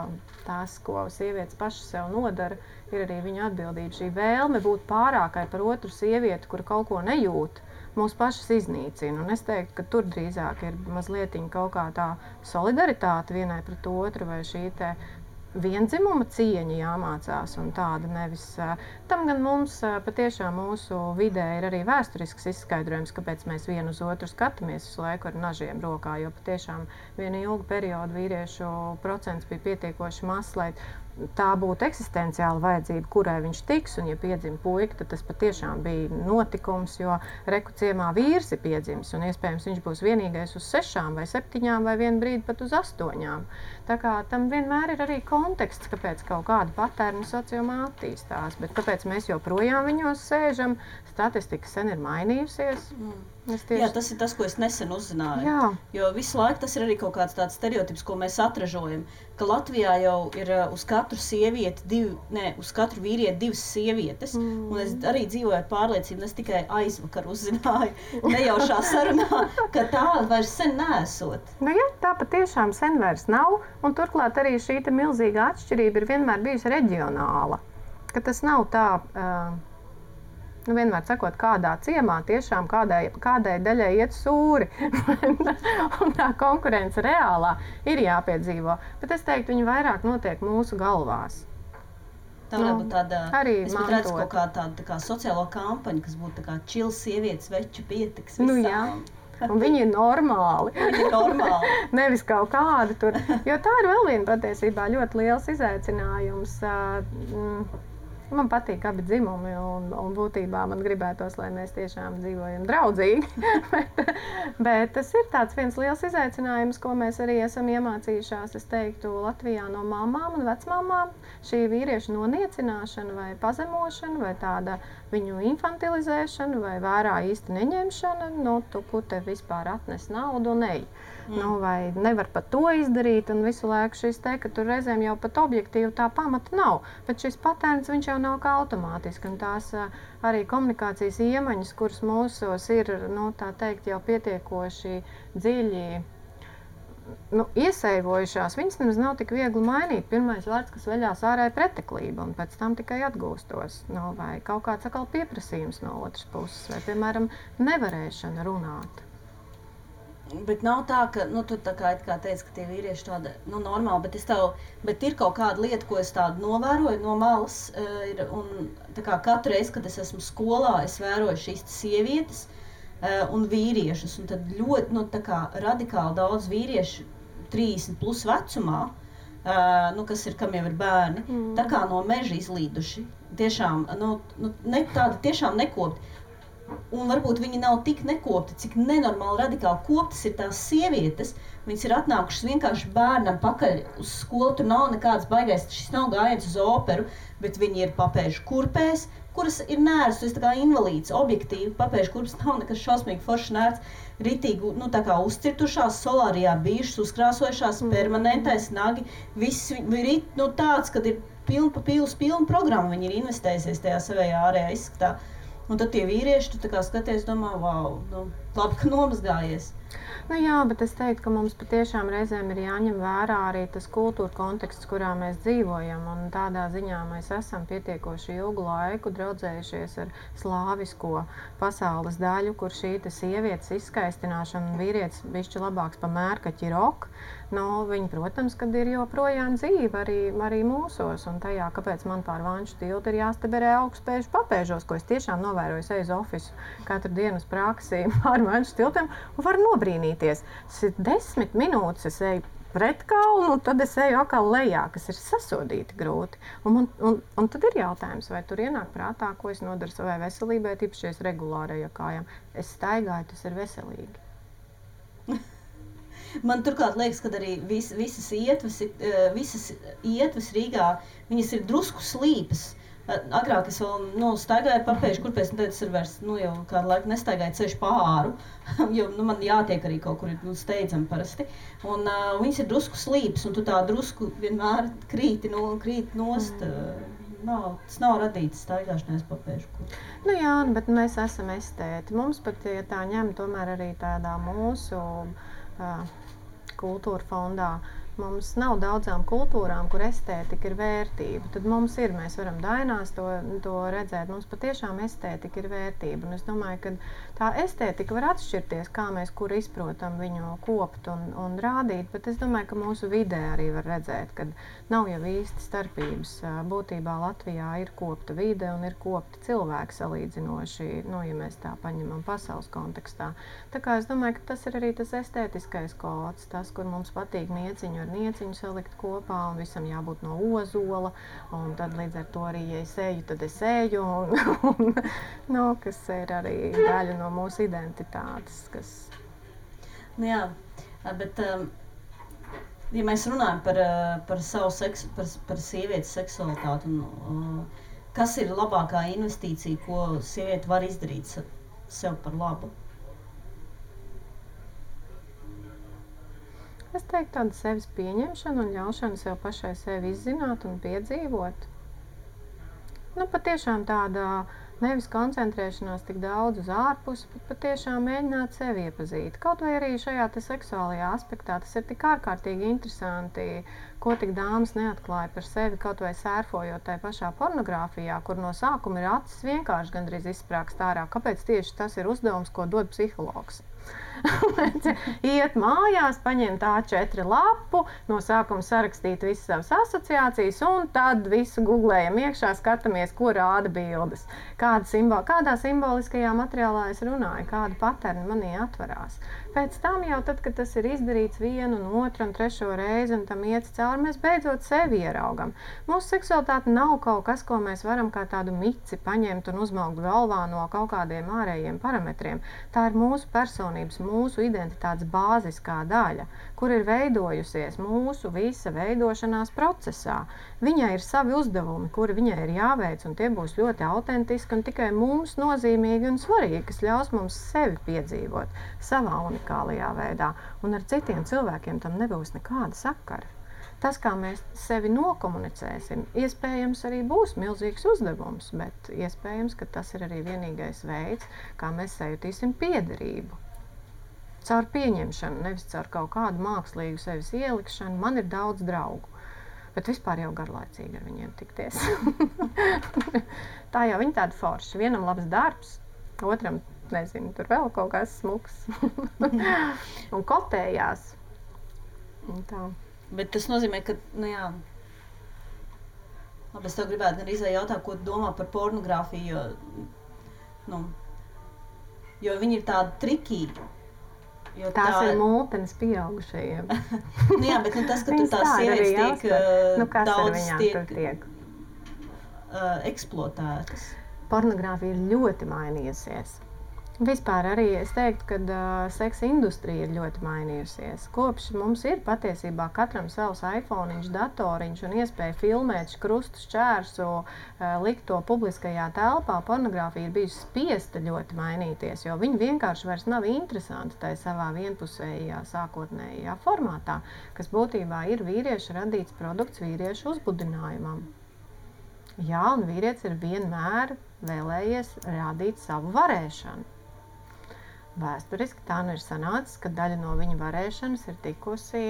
tās, ko sievietes paši sev nodara, ir arī viņa atbildība. Šī vēlme būt pārākai par otru sievieti, kur kaut ko nejūt, mūs pašas iznīcina. Un es teiktu, ka tur drīzāk ir mazliet kaut kā tā solidaritāte vienai pret otru vai šī te viendzimuma cieņa jāmācās un tāda nevis. Tam gan mums patiešām mūsu vidē ir arī vēsturisks izskaidrojums, kāpēc mēs vienu uz otru skatāmies visu laiku ar nažiem rokā, jo patiešām vienu ilgu periodu vīriešu procents bija pietiekoši mazs, lai tā būtu eksistenciāla vajadzība, kurai viņš tiks, un ja piedzim puika, tad tas patiešām bija notikums, jo reku ciemā vīrs ir piedzimis, un iespējams viņš būs vienīgais uz 6 vai 7 vai vienu brīdi pat uz 8. Tā kā tam vienmēr ir arī konteksts, kāpēc kaut kāda patērna sociumā attīstās, bet kāpēc mēs joprojām viņos sēžam, statistika sen ir mainījusies. Jā, tas ir tas, ko es nesen uzzināju. Jā. Jo visu laiku tas ir arī kaut kāds tāds stereotips, ko mēs atražojam, ka Latvijā jau ir uz katru sievieti uz katru vīrieti 2 sievietes. Un es arī dzīvoju ar pārliecību, es tikai aizvakar uzzināju nejaušā sarunā, ka tā vairs sen neesot. Tā patiešām sen vairs nav, un turklāt arī šī milzīga atšķirība ir vienmēr bijusi reģionāla. Ka tas nav tā... vienmēr sakot, kādā ciemā tiešām kādai daļai iet sūri. Un tā konkurence reālā ir jāpiedzīvo. Bet es teiktu, viņi vairāk notiek mūsu galvās. Tā varētu būt tāda, es pat redzu mantot. kaut kā tāda tā kā sociālo kampaņu, kas būtu tā kā čils sievietes veču pietiks Nu visām. jā, un viņi ir normāli. Viņi ir normāli. Nevis kaut kādi tur. Jo tā ir vēl viena patiesībā ļoti liels izaicinājums. Man patīk abi dzimumi, un būtībā man gribētos, lai mēs tiešām dzīvojam draudzīgi. bet tas ir tāds viens liels izaicinājums, ko mēs arī esam iemācījušās, es teiktu, Latvijā no mamām un vecmamām. Šī vīriešu noniecināšana vai pazemošana vai tāda viņu infantilizēšana vai vērā īsti neņemšana, tu tev vispār atnes naudu un ej. Vai nevar pat to izdarīt, un visu laiku šis te, ka tur reizēm jau pat objektīvi tā pamata nav. Bet šis patērns, viņš jau nav kā automātiski, un tās arī komunikācijas iemaņas, kuras mūsos ir, tā teikt, jau pietiekoši dziļi iesaivojušās, viņas nemaz nav tik viegli mainīt. Pirmais vārds, kas veļās ārā, ir preteklība, un pēc tam tikai atgūstos. Vai kaut kāds atkal pieprasījums no otras puses, vai, piemēram, nevarēšana runāt. Bet nav tā, ka, tu tā kā teici, ka tie vīrieši tāda, normāli, bet ir kaut kāda lieta, ko es tādu novēroju no malas, un tā kā katru reizi, kad es esmu skolā, es vēroju šīs sievietes un vīriešus, un tad ļoti, tā kā radikāli daudz vīriešu 30 plus vecumā, kam jau ir bērni, tā kā no meža izlīduši, tiešām, tādi tiešām nekopti. Un varbūt viņi nav tik nekopti, cik nenormāli radikāli koptas ir tās sievietes. Viņas ir atnākušas vienkārši bērnam pakaļ uz skolu, tur nav nekāds baigais, šis nav gājiens uz operu, bet viņi ir papēžu kurpēs, kuras ir nērts, tas ir tā kā invalīds, objektīvi, papēžu kurpes nav nekas šausmīgi forši nērts, ritīgi, tā kā uzcirtušās, solārijā bijušas, uzkrāsojušās, permanentais, nagi, viss rit, tāds, kad ir pilna programma, viņi ir investējusies tajā savējā ārējā izskatā. Un tad tie vīrieši, tu tā kā skaties, domā, wow, nu, labi, ka nomazgājies. Nu jā, bet es teiktu, ka mums patiešām reizēm ir jāņem vērā arī tas kultūra konteksts, kurā mēs dzīvojam. Un tādā ziņā mēs esam pietiekoši ilgu laiku draudzējušies ar slāvisko pasaules daļu, kur šī sievietes izskaistināšana un vīrietis bišķi labāks pa mērkaķi rok. Nu, viņi, protams, kad ir joprojām dzīve arī mūsos. Un tajā, kāpēc man pār Vanču tiltu ir jāstaberē augstspēžu papēžos, ko es tiešām novēroju, eju uz ofisu katru dienu uz praksi pār Vanču tiltiem un varu nobrīnīties. 10 minūtes es eju pret kalnu, tad es eju atkal lejā, kas ir sasodīti grūti. Un tad ir jautājums, vai tur ienāk prātā, ko es nodaru savai veselībai, tīpaši es regulāri eju kājām. Es staigāju, tas ir veselīgi. Man turklāt liekas, ka arī visas ietves Rīgā, viņas ir drusku slīpas. Agrāk es vēl staigāju papēžu kurpēs, un tad es vairs jau kādu laiku nestaigāju ceļu pāru, jo man jātiek arī kaut kur steidzami parasti. Un viņas ir drusku slīpas, un tu tā drusku vienmēr krīti nost. Tas nav radīts staigāšanās papēžu kurpēs. Nu jā, bet mēs esam estēti. Mums pat, ja tā ņem, tomēr arī tādā mūsu kultūra fondā. Mums nav daudzām kultūrām, kur estētika ir vērtība. Tad mums ir, mēs varam dainās to redzēt. Mums patiešām estētika ir vērtība. Un es domāju, ka tā estētika var atšķirties, kā mēs kur izprotam viņu kopt un rādīt. Bet es domāju, ka mūsu vidē arī var redzēt, ka nav jau īsti starpības. Būtībā Latvijā ir kopta vide un ir kopti cilvēki salīdzinoši, ja mēs tā paņemam pasaules kontekstā. Tā kā es domāju, ka tas ir arī tas estētiskais kods, tas, kur mums patīk nieciņu ar nieciņu salikt kopā, un visam jābūt no ozola, un tad līdz ar to arī, ja es eju, tad es eju, kas ir arī daļa no mūsu identitātes. Nu jā, bet ja mēs runājam par savu seksu, par sievietes seksualitāti, kas ir labākā investīcija, ko sieviete var izdarīt sev par labu? Es teiktu, tāda sevis pieņemšana un ļaušana sev pašai sevi izzināt un piedzīvot. Patiešām tāda nevis koncentrēšanās tik daudz uz ārpusi, bet patiešām mēģināt sevi iepazīt. Kaut vai arī šajā seksuālajā aspektā tas ir tik ārkārtīgi interesanti, ko tik dāmas neatklāja par sevi, kaut vai sērfojot tai pašā pornogrāfijā, kur no sākuma ir acis vienkārši gandrīz izsprāgst ārā. Kāpēc tieši tas ir uzdevums, ko dod psihologs? Iet mājās, paņemt A4 lapu, no sākuma sarakstīt visas savas asociācijas, un tad visu googlējam iekšā, skatāmies, ko rāda bildes. Kādā simboliskajā materiālā es runāju, kāda paterni manī atverās. Pēc tam jau tad, kad tas ir izdarīts vienu, un otru un trešo reizi, un tam iet cauri, mēs beidzot sevi ieraugam. Mūsu seksualitāte nav kaut kas, ko mēs varam kā tādu mici paņemt un uzmaukt galvā no kaut kādiem ārējiem parametriem. Tā ir mūsu personības, mūsu identitātes bāziskā daļa, kur ir veidojusies mūsu visa veidošanās procesā. Viņai ir savi uzdevumi, kuri viņai ir jāveic, un tie būs ļoti autentiski un tikai mums nozīmīgi un svarīgi, kas ļaus mums sevi piedzīvot savā unikālajā veidā, un ar citiem cilvēkiem tam nebūs nekāda sakara. Tas, kā mēs sevi nokomunicēsim, iespējams arī būs milzīgs uzdevums, bet iespējams, ka tas ir arī vienīgais veids, kā mēs sajutīsim piederību. Caur pieņemšanu, nevis caur kaut kādu mākslīgu sevis ielikšanu. Man ir daudz draugu, bet vispār jau garlaicīgi ar viņiem tikties. Tā jau viņi tādi forši. Vienam labs darbs, otram, nezinu, tur vēl kaut kāds smuks. Un kotējās. Un tā. Bet tas nozīmē, ka, labi, es tev gribētu gan izvēl jautāt, ko tu domā par pornogrāfiju, jo viņi ir tādi trikīgi. Tās ir multenes pieaugušajiem. Bet tas, ka tur tās sievietes tiek daudz tiek eksploatētas. Pornogrāfija ir ļoti mainījusies. Vispār arī es teiktu, ka seksa industrija ir ļoti mainījusies. Kopš mums ir patiesībā katram savs iPhone-iņš, datoriņš un iespēja filmēt krustu šķērsu, likt to publiskajā telpā, pornogrāfija ir bijusi spiesta ļoti mainīties, jo viņi vienkārši vairs nav interesanti tai savā vienpusējā sākotnējā formātā, kas būtībā ir vīrieša radīts produkts vīriešu uzbudinājumam. Jā, un vīrietis ir vienmēr vēlējies rādīt savu varēšanu. Vēsturiski tā nu ir sanācis, ka daļa no viņa varēšanas ir tikusi,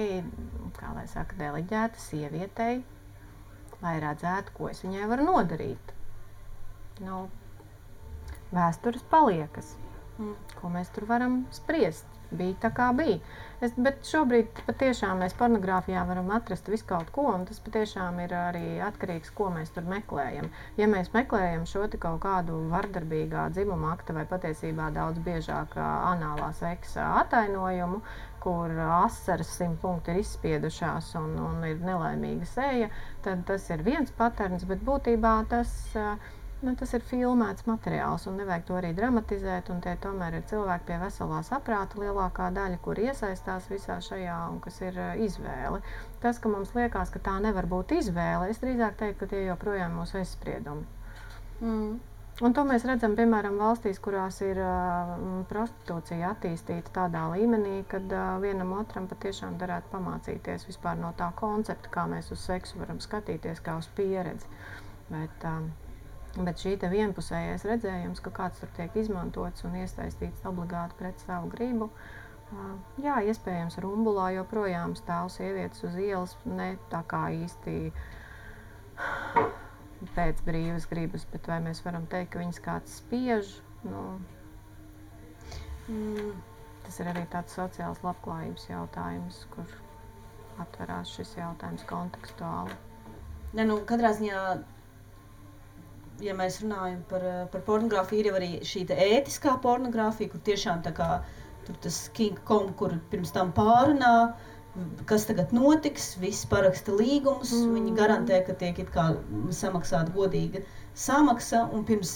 kā lai saka, deleģēta sievietei, lai redzētu, ko es viņai varu nodarīt. Nu, vēstures paliekas. Ko mēs tur varam spriest? Bija tā kā bija. Bet šobrīd patiešām mēs pornogrāfijā varam atrast visu kaut ko, un tas patiešām ir arī atkarīgs, ko mēs tur meklējam. Ja mēs meklējam šo kaut kādu vardarbīgā dzimuma akta vai patiesībā daudz biežāk anālā seksa atainojumu, kur asaras 100 punkti ir izspiedušās un ir nelaimīga seja, tad tas ir viens paterns, bet būtībā tas ir filmēts materiāls un nevajag to arī dramatizēt, un tie tomēr ir cilvēki pie veselā saprāta lielākā daļa, kur iesaistās visā šajā un kas ir izvēle. Tas, ka mums liekas, ka tā nevar būt izvēle, es drīzāk teiktu, ka tie joprojām mūsu aizspriedumi. Un to mēs redzam, piemēram, valstīs, kurās ir prostitūcija attīstīta tādā līmenī, kad vienam otram patiešām darētu pamācīties vispār no tā koncepta, kā mēs uz seksu varam skatīties, kā uz pieredzi. Bet šī te vienpusējais redzējums, ka kāds tur tiek izmantots un iesaistīts obligāti pret savu gribu, jā, iespējams, rumbulā joprojām stāv sievietes uz ielas, ne tā kā īsti pēc brīvas gribas, bet vai mēs varam teikt, ka viņas kāds spiež? Tas ir arī tāds sociāls labklājības jautājums, kur atverās šis jautājums kontekstuāli. Ja, katrā ziņā, ja mēs runājam par pornogrāfiju, ir jau arī šī ētiskā pornogrāfija, kur tiešām tā kā tur tas King Kong, kur pirms tam pārunā, kas tagad notiks, viss paraksta līgumus, viņi garantē, ka tiek it kā samaksāta godīga samaksa, un pirms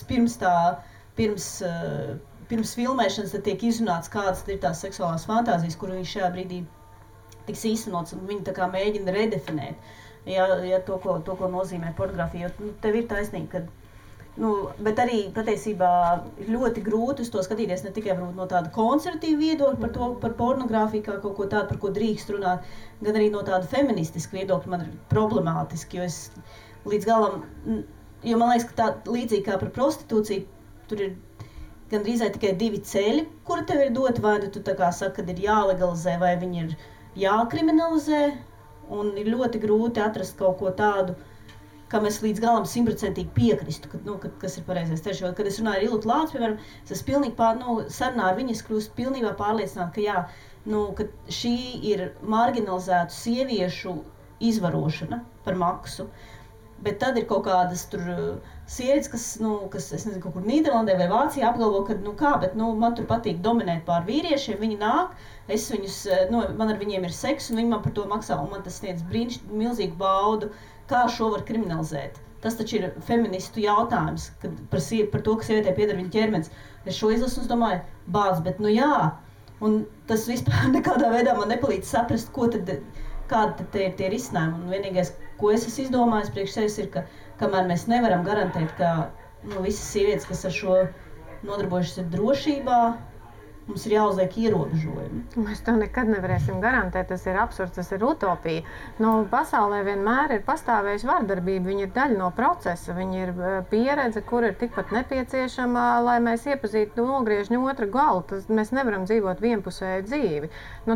filmēšanas tad tiek izrunāts, kādas ir tās seksuālās fantāzijas, kur viņš šajā brīdī tiks īstenots, un viņi tā kā mēģina redefinēt, ja to, ko nozīmē pornogrāfija, jo tev ir taisnība, ka bet arī patiesībā ir ļoti grūti uz to skatīties ne tikai no tāda konservatīva viedokļa par pornogrāfiju kā kaut ko tādu, par ko drīkst runāt, gan arī no tāda feministiska viedokļa man ir problemātiski, jo es līdz galam, jo man liekas, ka tā līdzīgi kā par prostitūciju, tur ir gandrīz tikai divi ceļi, kuri tev ir doti, vai tu tā kā saka, kad ir jālegalizē, vai viņi ir jākriminalizē, un ir ļoti grūti atrast kaut ko tādu, kā mēs līdz galam 100% piekristu, kas ir pareizais ceļš. Kad es runāju ar Ilūtu Lācu, piemēram, es pilnīgi sarunā ar viņu, es kļūstu pilnībā pārliecināta, ka jā, ka šī ir marginalizētu sieviešu izvarošana par maksu. Bet tad ir kaut kādas tur sievietes, kas es nezinu, kaut kur Nīderlandē vai Vācijā apgalvo, ka bet man tur patīk dominēt pār vīriešiem, viņi nāk, es viņus, man ar viņiem ir seks, un viņi man par to maksā, un man tas sniedz milzīgu baudu. Kā šo var kriminalizēt? Tas taču ir feministu jautājums, par to, ka sievietē pieder viņa ķermenis. Es šo izlasu un domāju, bet jā, un tas vispār nekādā veidā man nepalīdz saprast, kāda tad ir tie risinājumi. Un vienīgais, ko es esmu izdomājis priekš sevis, ir, ka kamēr mēs nevaram garantēt, ka visas sievietes, kas ar šo nodarbojušas ir drošībā, mums ir jāuzliek ierobežojumi. Mēs to nekad nevarēsim garantēt, tas ir absurds, tas ir utopija. Pasaulē vienmēr ir pastāvējusi vardarbība, viņa ir daļa no procesa, viņa ir pieredze, kur ir tikpat nepieciešama, lai mēs iepazītu nogriežņu otru galu. Mēs nevaram dzīvot vienpusēju dzīvi.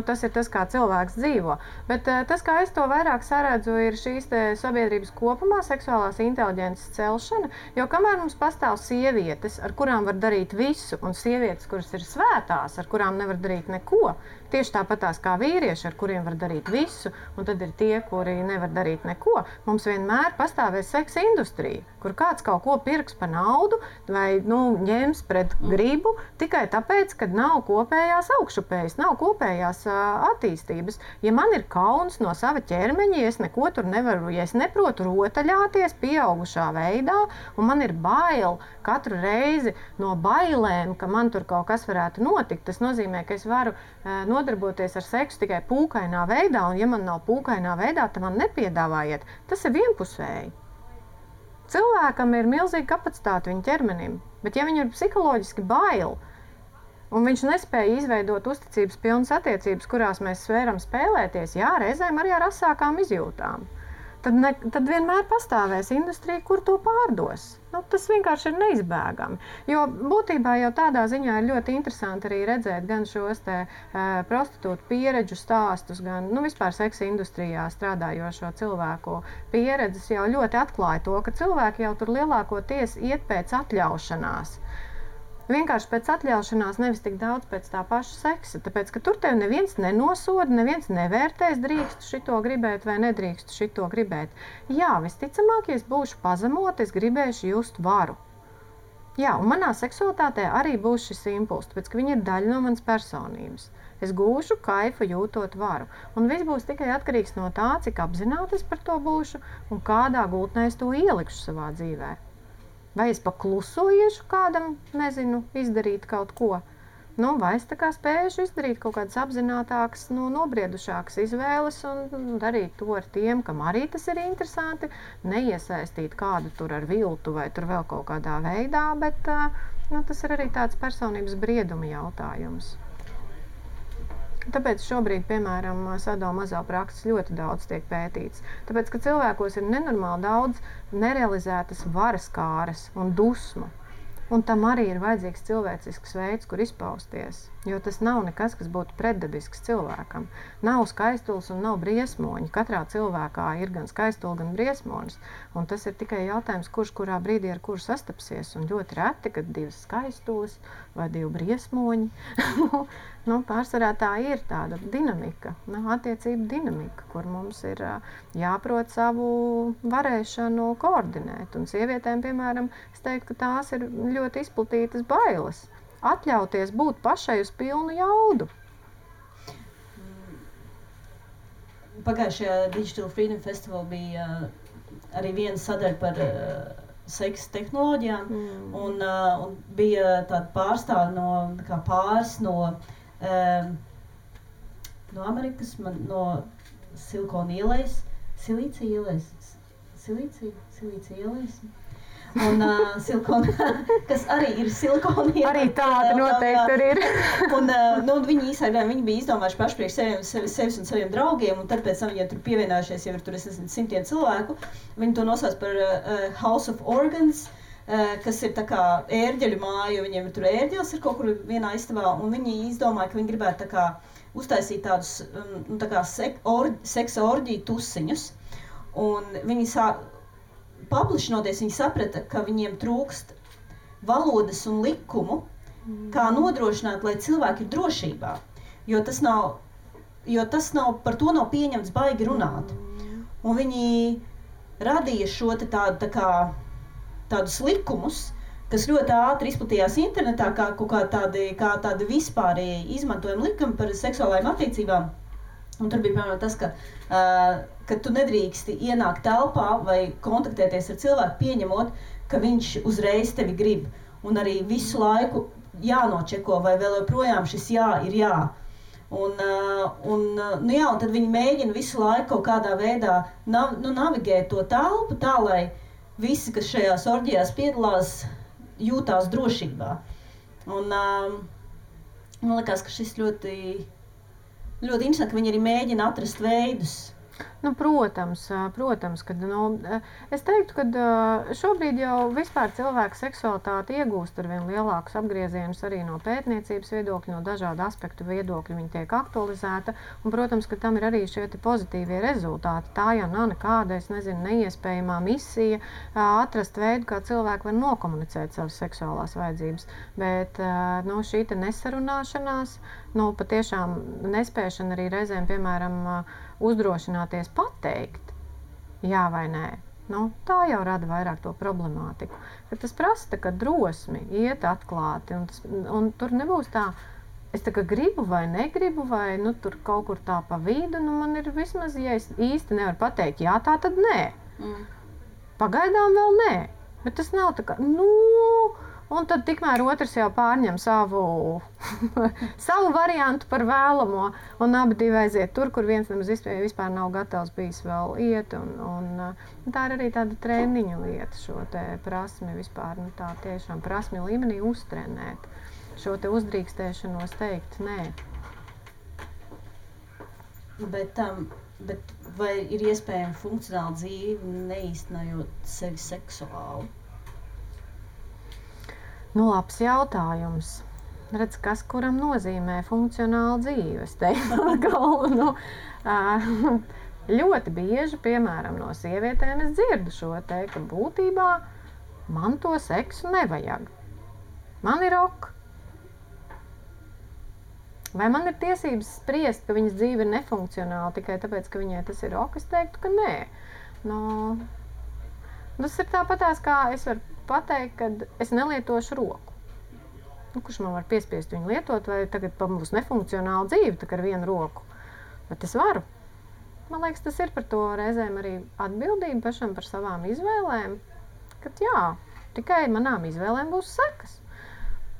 Tas ir tas, kā cilvēks dzīvo. Bet tas, kā es to vairāk saredzu, ir šīs sabiedrības kopumā seksuālās inteliģences celšana, jo kamēr mums pastāv sievietes, ar kurām var darīt visu, un sievietes, kuras ir svētā, ar kurām nevar darīt neko, tieši tāpatās kā vīrieši, ar kuriem var darīt visu, un tad ir tie, kuri nevar darīt neko. Mums vienmēr pastāvēs seksa industrija, kur kāds kaut ko pirks par naudu vai ņems pret gribu, tikai tāpēc, ka nav kopējās augšupējas, nav kopējās attīstības. Ja man ir kauns no sava ķermeņa, ja es neko tur nevaru, ja es neprotu rotaļāties pieaugušā veidā, un man ir bail katru reizi no bailēm, ka man tur kaut kas varētu notikt, tas nozīmē, ka es varu nodarboties ar seksu tikai pūkainā veidā, un ja man nav pūkainā veidā, tad man nepiedāvājiet. Tas ir vienpusēji. Cilvēkam ir milzīga kapacitāte viņa ķermenim, bet ja viņam ir psiholoģiski bail, un viņš nespēja izveidot uzticības pilnas attiecības, kurās mēs varam spēlēties, jā, reizēm arī ar asākām izjūtām. tad vienmēr pastāvēs industrija, kur to pārdos. Tas vienkārši ir neizbēgami. Jo būtībā jau tādā ziņā ir ļoti interesanti arī redzēt gan šos prostitūtu pieredžu stāstus, gan vispār seksa industrijā strādājošo cilvēku pieredzes jau ļoti atklāja to, ka cilvēki jau tur lielākoties iet pēc atļaušanās. Vienkārši pēc atļaušanās, nevis tik daudz pēc tā paša seksa. Tāpēc, ka tur tev neviens nenosoda, neviens nevērtēs, drīkstu šito gribēt vai nedrīkstu šito gribēt. Jā, visticamāk, ja es būšu pazemota, es gribēšu just varu. Jā, un manā seksualitātē arī būs šis impulss, tāpēc, ka viņa ir daļa no manas personības. Es gūšu kaifu jūtot varu. Un viss būs tikai atkarīgs no tā, cik apzināti es par to būšu un kādā gultnē es to ielikšu savā dzīvē. Vai es paklusoju kādam, izdarīt kaut ko, vai es tā kā spējuši izdarīt kaut kādas apzinātākas, nobriedušākas izvēles un darīt to ar tiem, kam arī tas ir interesanti, neiesaistīt kādu tur ar viltu vai tur vēl kaut kādā veidā, bet tas ir arī tāds personības brieduma jautājums. Tāpēc šobrīd, piemēram, sadomazo-prakses ļoti daudz tiek pētīts. Tāpēc, ka cilvēkos ir nenormāli daudz nerealizētas varas kāras un dusmu. Un tam arī ir vajadzīgs cilvēcisks veids, kur izpausties. Jo tas nav nekas, kas būtu pretdabisks cilvēkam. Nav skaistulis un nav briesmoņi. Katrā cilvēkā ir gan skaistuli, gan briesmonis. Un tas ir tikai jautājums, kurš kurā brīdī ar kuru sastapsies. Un ļoti reti, kad divas skaistulis vai divi briesmoņi. Pārsvarā tā ir tāda dinamika, attiecība dinamika, kur mums ir jāprot savu varēšanu koordinēt. Un sievietēm, piemēram, es teiktu, ka tās ir ļoti izplatītas bailes. Atļauties būt pašai uz pilnu jaudu. Pagājušajā Digital Freedom Festival bija arī viena sadaļa par seksa tehnoloģijām. Un bija tāda pārstāve no pāris no Amerikas, no Silikona ielejas, Silīcija ielejas. Un silikona, kas arī ir silikona ieleja. Arī tāda noteikti tur ir. Viņi īstenībā bija izdomājuši paši priekš sevis un saviem draugiem, un tad pēc tam viņiem tur pievienojušies jau ir tur, simtiem cilvēku. Viņi to nosauc par House of Organs, kas ir tā kā ērģeļu māja, jo viņiem tur ērģelis ir kaut kur vienā istabā, un viņi izdomāja, ka viņi gribētu tā kā uztaisīt tādus tā kā seksa orģiju tusiņus, un viņi paplašinoties, viņi saprata, ka viņiem trūkst valodas un likumu, kā nodrošināt, lai cilvēki ir drošībā, jo tas nav, par to nav pieņemts baigi runāt. Un viņi radīja šo tādus likumus, kas ļoti ātri izplatījās internetā, kā tādi vispārēji izmantojami likumi par seksuālajām attiecībām. Un tur bija piemēram tas, ka tu nedrīksti ienākt telpā vai kontaktēties ar cilvēku, pieņemot, ka viņš uzreiz tevi grib. Un arī visu laiku jānočeko, vai vēl joprojām šis jā ir jā. Un tad viņi mēģina visu laiku kaut kādā veidā navigēt to telpu tā, lai visi, kas šajās orģijās piedalās, jūtās drošībā. Un man liekas, ka šis ļoti interesanti, ka viņi arī mēģina atrast veidus. Protams, kad es teiktu, ka šobrīd jau vispār cilvēka seksualitāte iegūst ar vien lielākus apgriezienus arī no pētniecības viedokļa, no dažādu aspektu viedokļa viņa tiek aktualizēta, un, protams, ka tam ir arī šie pozitīvie rezultāti. Tā jau nav nekāda, neiespējamā misija atrast veidu, kā cilvēki var nokomunicēt savas seksuālās vajadzības, bet šī nesarunāšanās, patiešām nespēšana arī reizēm, piemēram, uzdrošināties pateikt, jā vai nē. Tā jau rada vairāk to problemātiku. Kad tas prasa drosmi, iet atklāti, un tur nebūs tā, es tā kā gribu vai negribu, vai tur kaut kur tā pa vidu, man ir vismaz, ja es īsti nevaru pateikt, jā, tā tad nē. Pagaidām vēl nē, bet tas nav tā kā, un tad tikmēr otrs jau pārņem savu variantu par vēlamo, un abi divi aiziet tur, kur viens nemaz vispār nav gatavs bijis vēl iet, un tā ir arī tāda treniņu lieta, šo te prasmi vispār, tā tiešām prasmi līmenī uztrenēt, šo te uzdrīkstēšanos teikt nē. Bet vai ir iespējama funkcionāla dzīve, neīstenojot sevi seksuāli? Labs jautājums. Redz, kas kuram nozīmē funkcionāla dzīve? Es teiktu, galveno. Ļoti bieži, piemēram, no sievietēm es dzirdu šo te, ka būtībā man to seksu nevajag. Man ir ok. Vai man ir tiesības spriest, ka viņas dzīve ir nefunkcionāla tikai tāpēc, ka viņai tas ir ok? Es teiktu, ka nē. Tas ir tāpatās, kā es varu pateikt, ka es nelietošu roku. Kurš man var piespiest viņu lietot, vai tagad būs nefunkcionāla dzīve tā ar vienu roku? Bet es varu. Man liekas, tas ir par to reizēm arī atbildība pašam par savām izvēlēm. Kad jā, tikai manām izvēlēm būs sekas.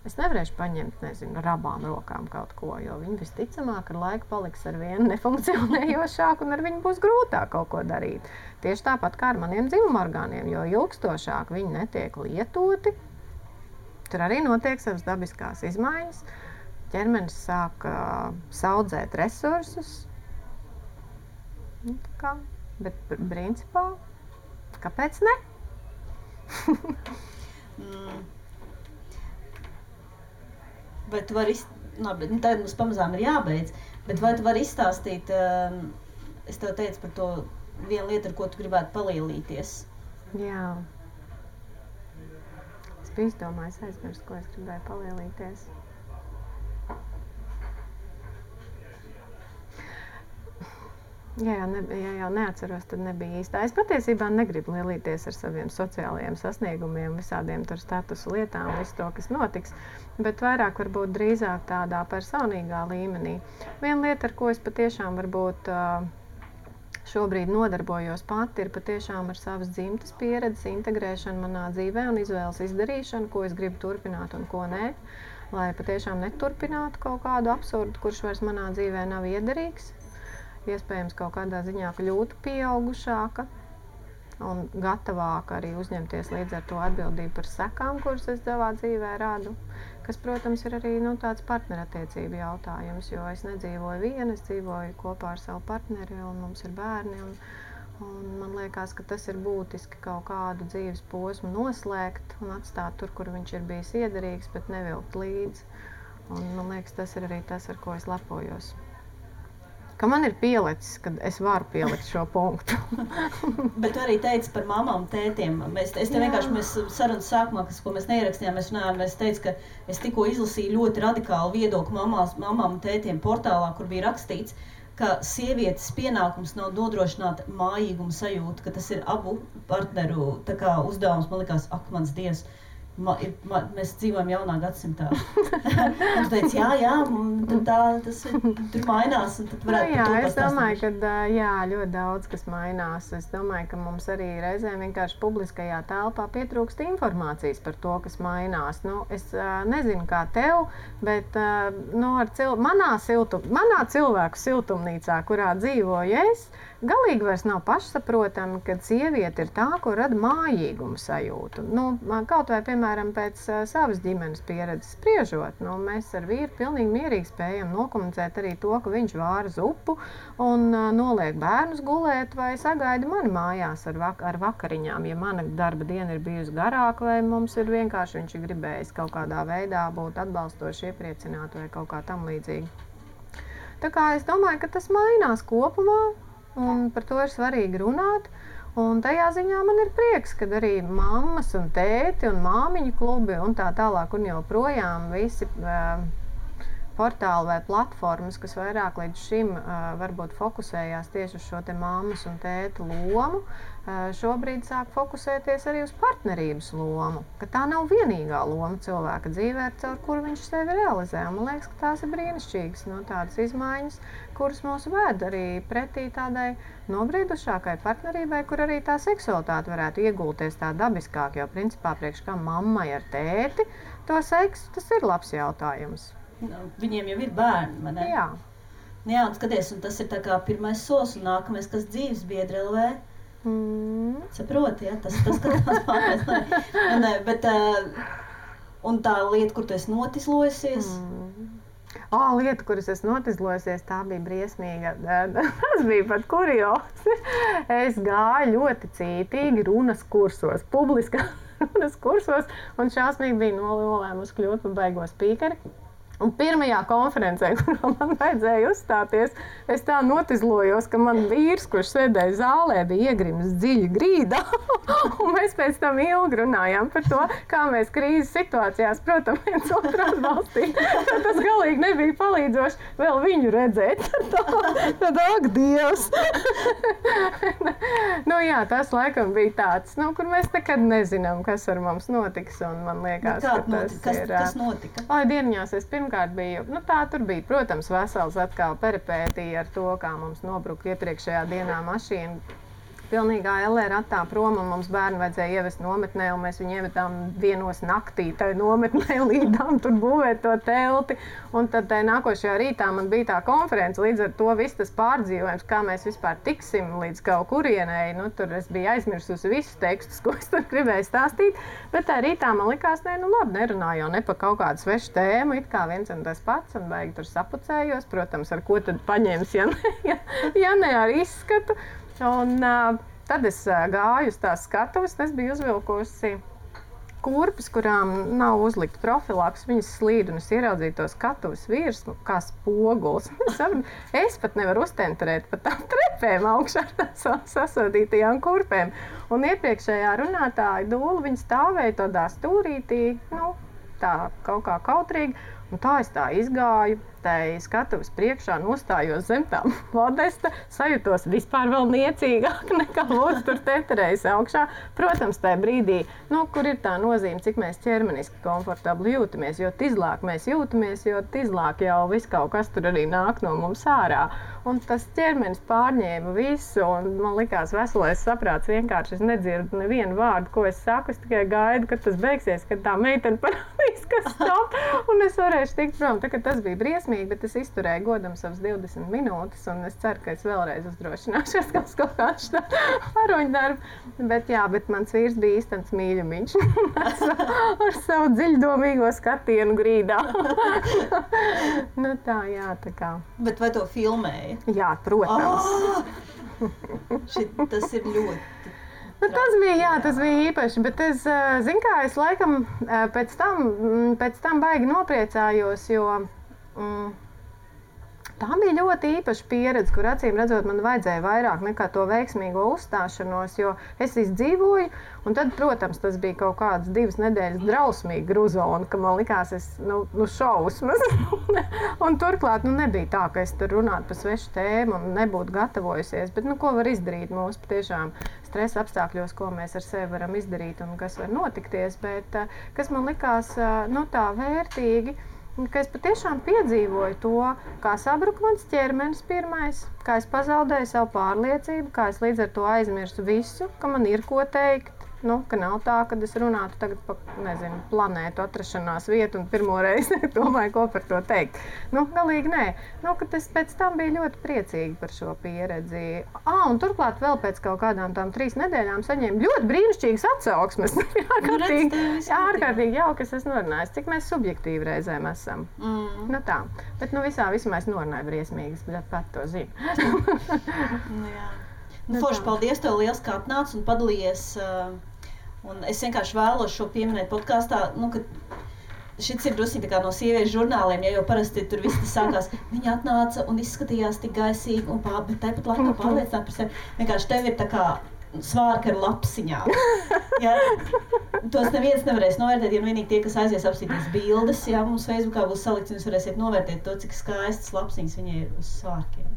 Es nevarēšu paņemt, nezinu, ar abām rokām kaut ko, jo viņi visticamāk ar laiku paliks ar vienu nefunkcionējošāku un ar viņu būs grūtāk kaut ko darīt. Tieši tāpat kā ar maniem dzimumorgāniem, jo ilgstošāk viņi netiek lietoti, tur arī notiek savas dabiskās izmaiņas. Ķermenis sāk saudzēt resursus. Bet principā, kāpēc ne? Vai tu vari tagad mums pamazām ir jābeidz, bet vai tu vari izstāstīt, es tev teicu par to vienu lietu, ar ko tu gribētu palielīties? Jā. Es biju izdomājis aizmirst, ko es gribēju palielīties. Ja jau neatceros, tad nebija īstā. Es patiesībā negribu lielīties ar saviem sociālajiem sasniegumiem, visādiem tur statusu lietām, visu to, kas notiks, bet vairāk varbūt drīzāk tādā personīgā līmenī. Viena lieta, ar ko es patiešām varbūt šobrīd nodarbojos pati, ir patiešām ar savas dzimtas pieredzes integrēšanu manā dzīvē un izvēles izdarīšanu, ko es gribu turpināt un ko nē, lai patiešām neturpinātu kaut kādu absurdu, kurš vairs manā dzīvē nav iederīgs. Iespējams, kaut kādā ziņā kļūtu pieaugušāka un gatavāka arī uzņemties līdz ar to atbildību par sekām, kuras es savā dzīvē radu. Kas, protams, ir arī tāds partnerattiecību jautājums, jo es nedzīvoju viena, es dzīvoju kopā ar savu partneri un mums ir bērni. Un man liekas, ka tas ir būtiski kaut kādu dzīves posmu noslēgt un atstāt tur, kur viņš ir bijis iederīgs, bet nevilkt līdzi. Un man liekas, tas ir arī tas, ar ko es lepojos. Ka man ir pielicis, kad es varu pielikt šo punktu. Bet tu arī teici par mamām, tētiem. Es te vienkārši, mēs sarunas sākumā, ko mēs neierakstījām, mēs runājām, es teicu, ka es tikko izlasīju ļoti radikālu viedokli mamām un tētiem portālā, kur bija rakstīts, ka sievietes pienākums nav nodrošināt mājīgumu sajūtu, ka tas ir abu partneru uzdevums. Man likās, ak, mans Dievs, mēs dzīvojam jaunā gadsimtā. Un tu teici, jā, tas tur mainās, un tad varētu par to pastāstīt. Es domāju, ka ļoti daudz kas mainās. Es domāju, ka mums arī reizēm vienkārši publiskajā telpā pietrūkst informācijas par to, kas mainās. Es nezinu, kā tev, bet manā cilvēku siltumnīcā, kurā dzīvoju es, galīgi vairs nav pašsaprotami, ka sieviete ir tā, ko rada mājīgumu sajūtu. Kaut vai, piemēram, pēc savas ģimenes pieredzes spriežot, mēs ar vīru pilnīgi mierīgi spējam nokomunicēt arī to, ka viņš vāra zupu un noliek bērnus gulēt vai sagaida mani mājās ar vakariņām, ja mana darba diena ir bijusi garāka vai mums ir vienkārši viņš ir gribējis kaut kādā veidā būt atbalstoši, iepriecināt vai kaut kā tam līdzīgi. Tā kā es domāju, ka tas mainās kopumā. Un par to ir svarīgi runāt. Un tajā ziņā man ir prieks, ka arī mammas un tēti un māmiņu klubi un tā tālāk un joprojām visi portāli vai platformas, kas vairāk līdz šim varbūt fokusējās tieši uz šo te mammas un tēta lomu, šobrīd sāk fokusēties arī uz partnerības lomu. Ka tā nav vienīgā loma cilvēka dzīvē, caur kuru viņš sevi realizē. Man liekas, ka tās ir brīnišķīgas tādas izmaiņas, kuras mūs ved arī pretī tādai nobriedušākai partnerībai, kur arī tā seksualitāte varētu iegulties tā dabiskāk, jo principā priekš kā mammai ar tēti to seksu, tas ir labs jautājums. Viņiem jau ir bērni, vai ne? Jā. Jā, un skaties, un tas ir tā kā pirmais solis un nākamais, kas dzīves biedri LV. Saproti, ja? Tas ka tās pārmēs. Bet, un tā lieta, kur tu esi notislojusies, Lieta, kuras es notizlojusies, tā bija briesmīga. Tas bija pat kuriozi. Es gāju ļoti cītīgi runas kursos, publiskā runas kursos, un šausmīgi bija nolēmusi kļūt par baigo spīkeri. Un pirmajā konferencē, kurā man vajadzēja uzstāties, es tā notizlojos, ka man vīrs, kurš sēdēja zālē, bija iegrimis dziļi grīdā. Un mēs pēc tam ilgi runājām par to, kā mēs krīzes situācijās, protams, viens otru atbalstīt. Tas galīgi nebija palīdzoši vēl viņu redzēt. Tad, ak, Dievs! Jā, tas laikam bija tāds, kur mēs nekad nezinām, kas ar mums notiks. Un man liekas, kas notika? Dieniņās es pirmkārt biju, tur bija, protams, vesels atkal peripētija ar to, kā mums nobruka iepriekšējā dienā mašīna. Pilnīgā LR ratā prom, un mums bērni vajadzēja ievest nometnē, un mēs viņu ievedām 1 naktī tai nometnē, līdām tur būvēt to telti. Un tad nākošajā rītā man bija tā konference, līdz ar to viss tas pārdzīvojums, kā mēs vispār tiksim līdz kaut kurienei. Tur es biju aizmirsusi visus tekstus, ko es tur gribēju stāstīt, bet tā rītā man likās, labi, nerunāju jau ne pa kaut kādu svešu tēmu, it kā viens un tas pats, un baigi tur sapucējos, protams, ar ko tad paņems, ja ne ar izskatu. Un tad es gāju uz tās skatuves, es biju uzvilkusi kurpes, kurām nav uzlikta profilaks, viņas slīd, un es ieraudzīju to skatuves virsmu kā spoguls. Es pat nevaru uztenterēt pa tām trepēm augšā ar tām sasodītajām kurpēm. Un iepriekšējā runātāja Dūla, viņa stāvēja tādā stūrītī, tā kaut kā kautrīgi, un tā es tā izgāju. Tai skatuves priekšā nostājos zem tām modesta, sajūtos vispār vēl niecīgāk nekā lūdzu tur teterējas augšā. Protams, tajā brīdī, kur ir tā nozīme, cik mēs ķermeniski komfortabli jūtamies, jo tizlāk mēs jūtamies, jo tizlāk jau viss kaut kas tur arī nāk no mums ārā. Un tas ķermenis pārņēma visu, un man likās veselais saprāts vienkārši. Es nedzirdu nevienu vārdu, ko es saku, es tikai gaidu, kad tas beigsies, kad tā meitene parādīs, kas stop, un es varēšu tikt prom. Tā, tas bija briesmīgi, bet es izturēju godam savas 20 minūtes, un es ceru, ka es vēlreiz uzdrošināšos kaut kāds varoņdarbu. Bet mans vīrs bija īstens mīļumiņš ar savu dziļdomīgo skatienu grīdā. Tā kā. Bet vai to filmēja? Jā, protams. Tas ir ļoti... Tas bija īpaši, bet es laikam pēc tam baigi nopriecājos, jo tā bija ļoti īpaša pieredze, kur acīm redzot man vajadzēja vairāk nekā to veiksmīgo uzstāšanos, jo es izdzīvoju, un tad, protams, tas bija kaut kādas 2 nedēļas drausmīgi gruzona, ka man likās, šausmas. Un turklāt, nebija tā, ka es tur runātu par svešu tēmu un nebūtu gatavojusies, bet, ko var izdarīt mūsu patiešām stresa apstākļos, ko mēs ar sevi varam izdarīt un kas var notikties, bet kas man likās, tā vērtīgi, ka es patiešām piedzīvoju to, kā sabruka mans ķermenis pirmais, kā es pazaudēju savu pārliecību, kā es līdz ar to aizmirsu visu, ka man ir ko teikt. Ka nav tā, kad es runātu tagad par, planētu atrašanās vietu un pirmo reizi domāju, ko par to teikt. Galīgi nē. Ka es pēc tam biju ļoti priecīga par šo pieredzi. Un turklāt vēl pēc kaut kādām tām 3 nedēļām saņēmu ļoti brīnišķīgas atsauksmes. Ārkārtīgi jauki, es esmu norunājis, cik mēs subjektīvi reizēm esam. Tā. Bet visā vismā es norunāju briesmīgas, bet pat to zinu. Forši, paldies tev liels, kā atnāc un padalījies. Un es vienkārši vēlos šo pieminēt podkāstā, ka šis ir drusku no sieviešu žurnāliem, jo parasti tur viss sākās. Viņa atnāca un izskatījās tik gaisīgi, bet tāpat laikā pārliecināt par sevi. Vienkārši tev ir tā kā svārka ar lapsiņām. Ja? Tos neviens nevarēs novērtēt, ja vienīgi tie, kas aizies apstīties bildes. Ja? Mums Facebookā būs salikts, un jūs varēsiet novērtēt to, cik skaistas lapsiņas viņai ir uz svārkiem.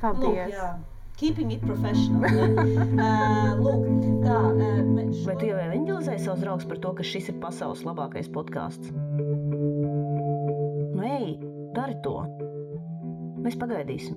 Paldies! Keeping it professional. Lūk, tā. Vai tu jau evanģelizēji savus draugus par to, ka šis ir pasaules labākais podkāsts? Ej, dari to. Mēs pagaidīsim.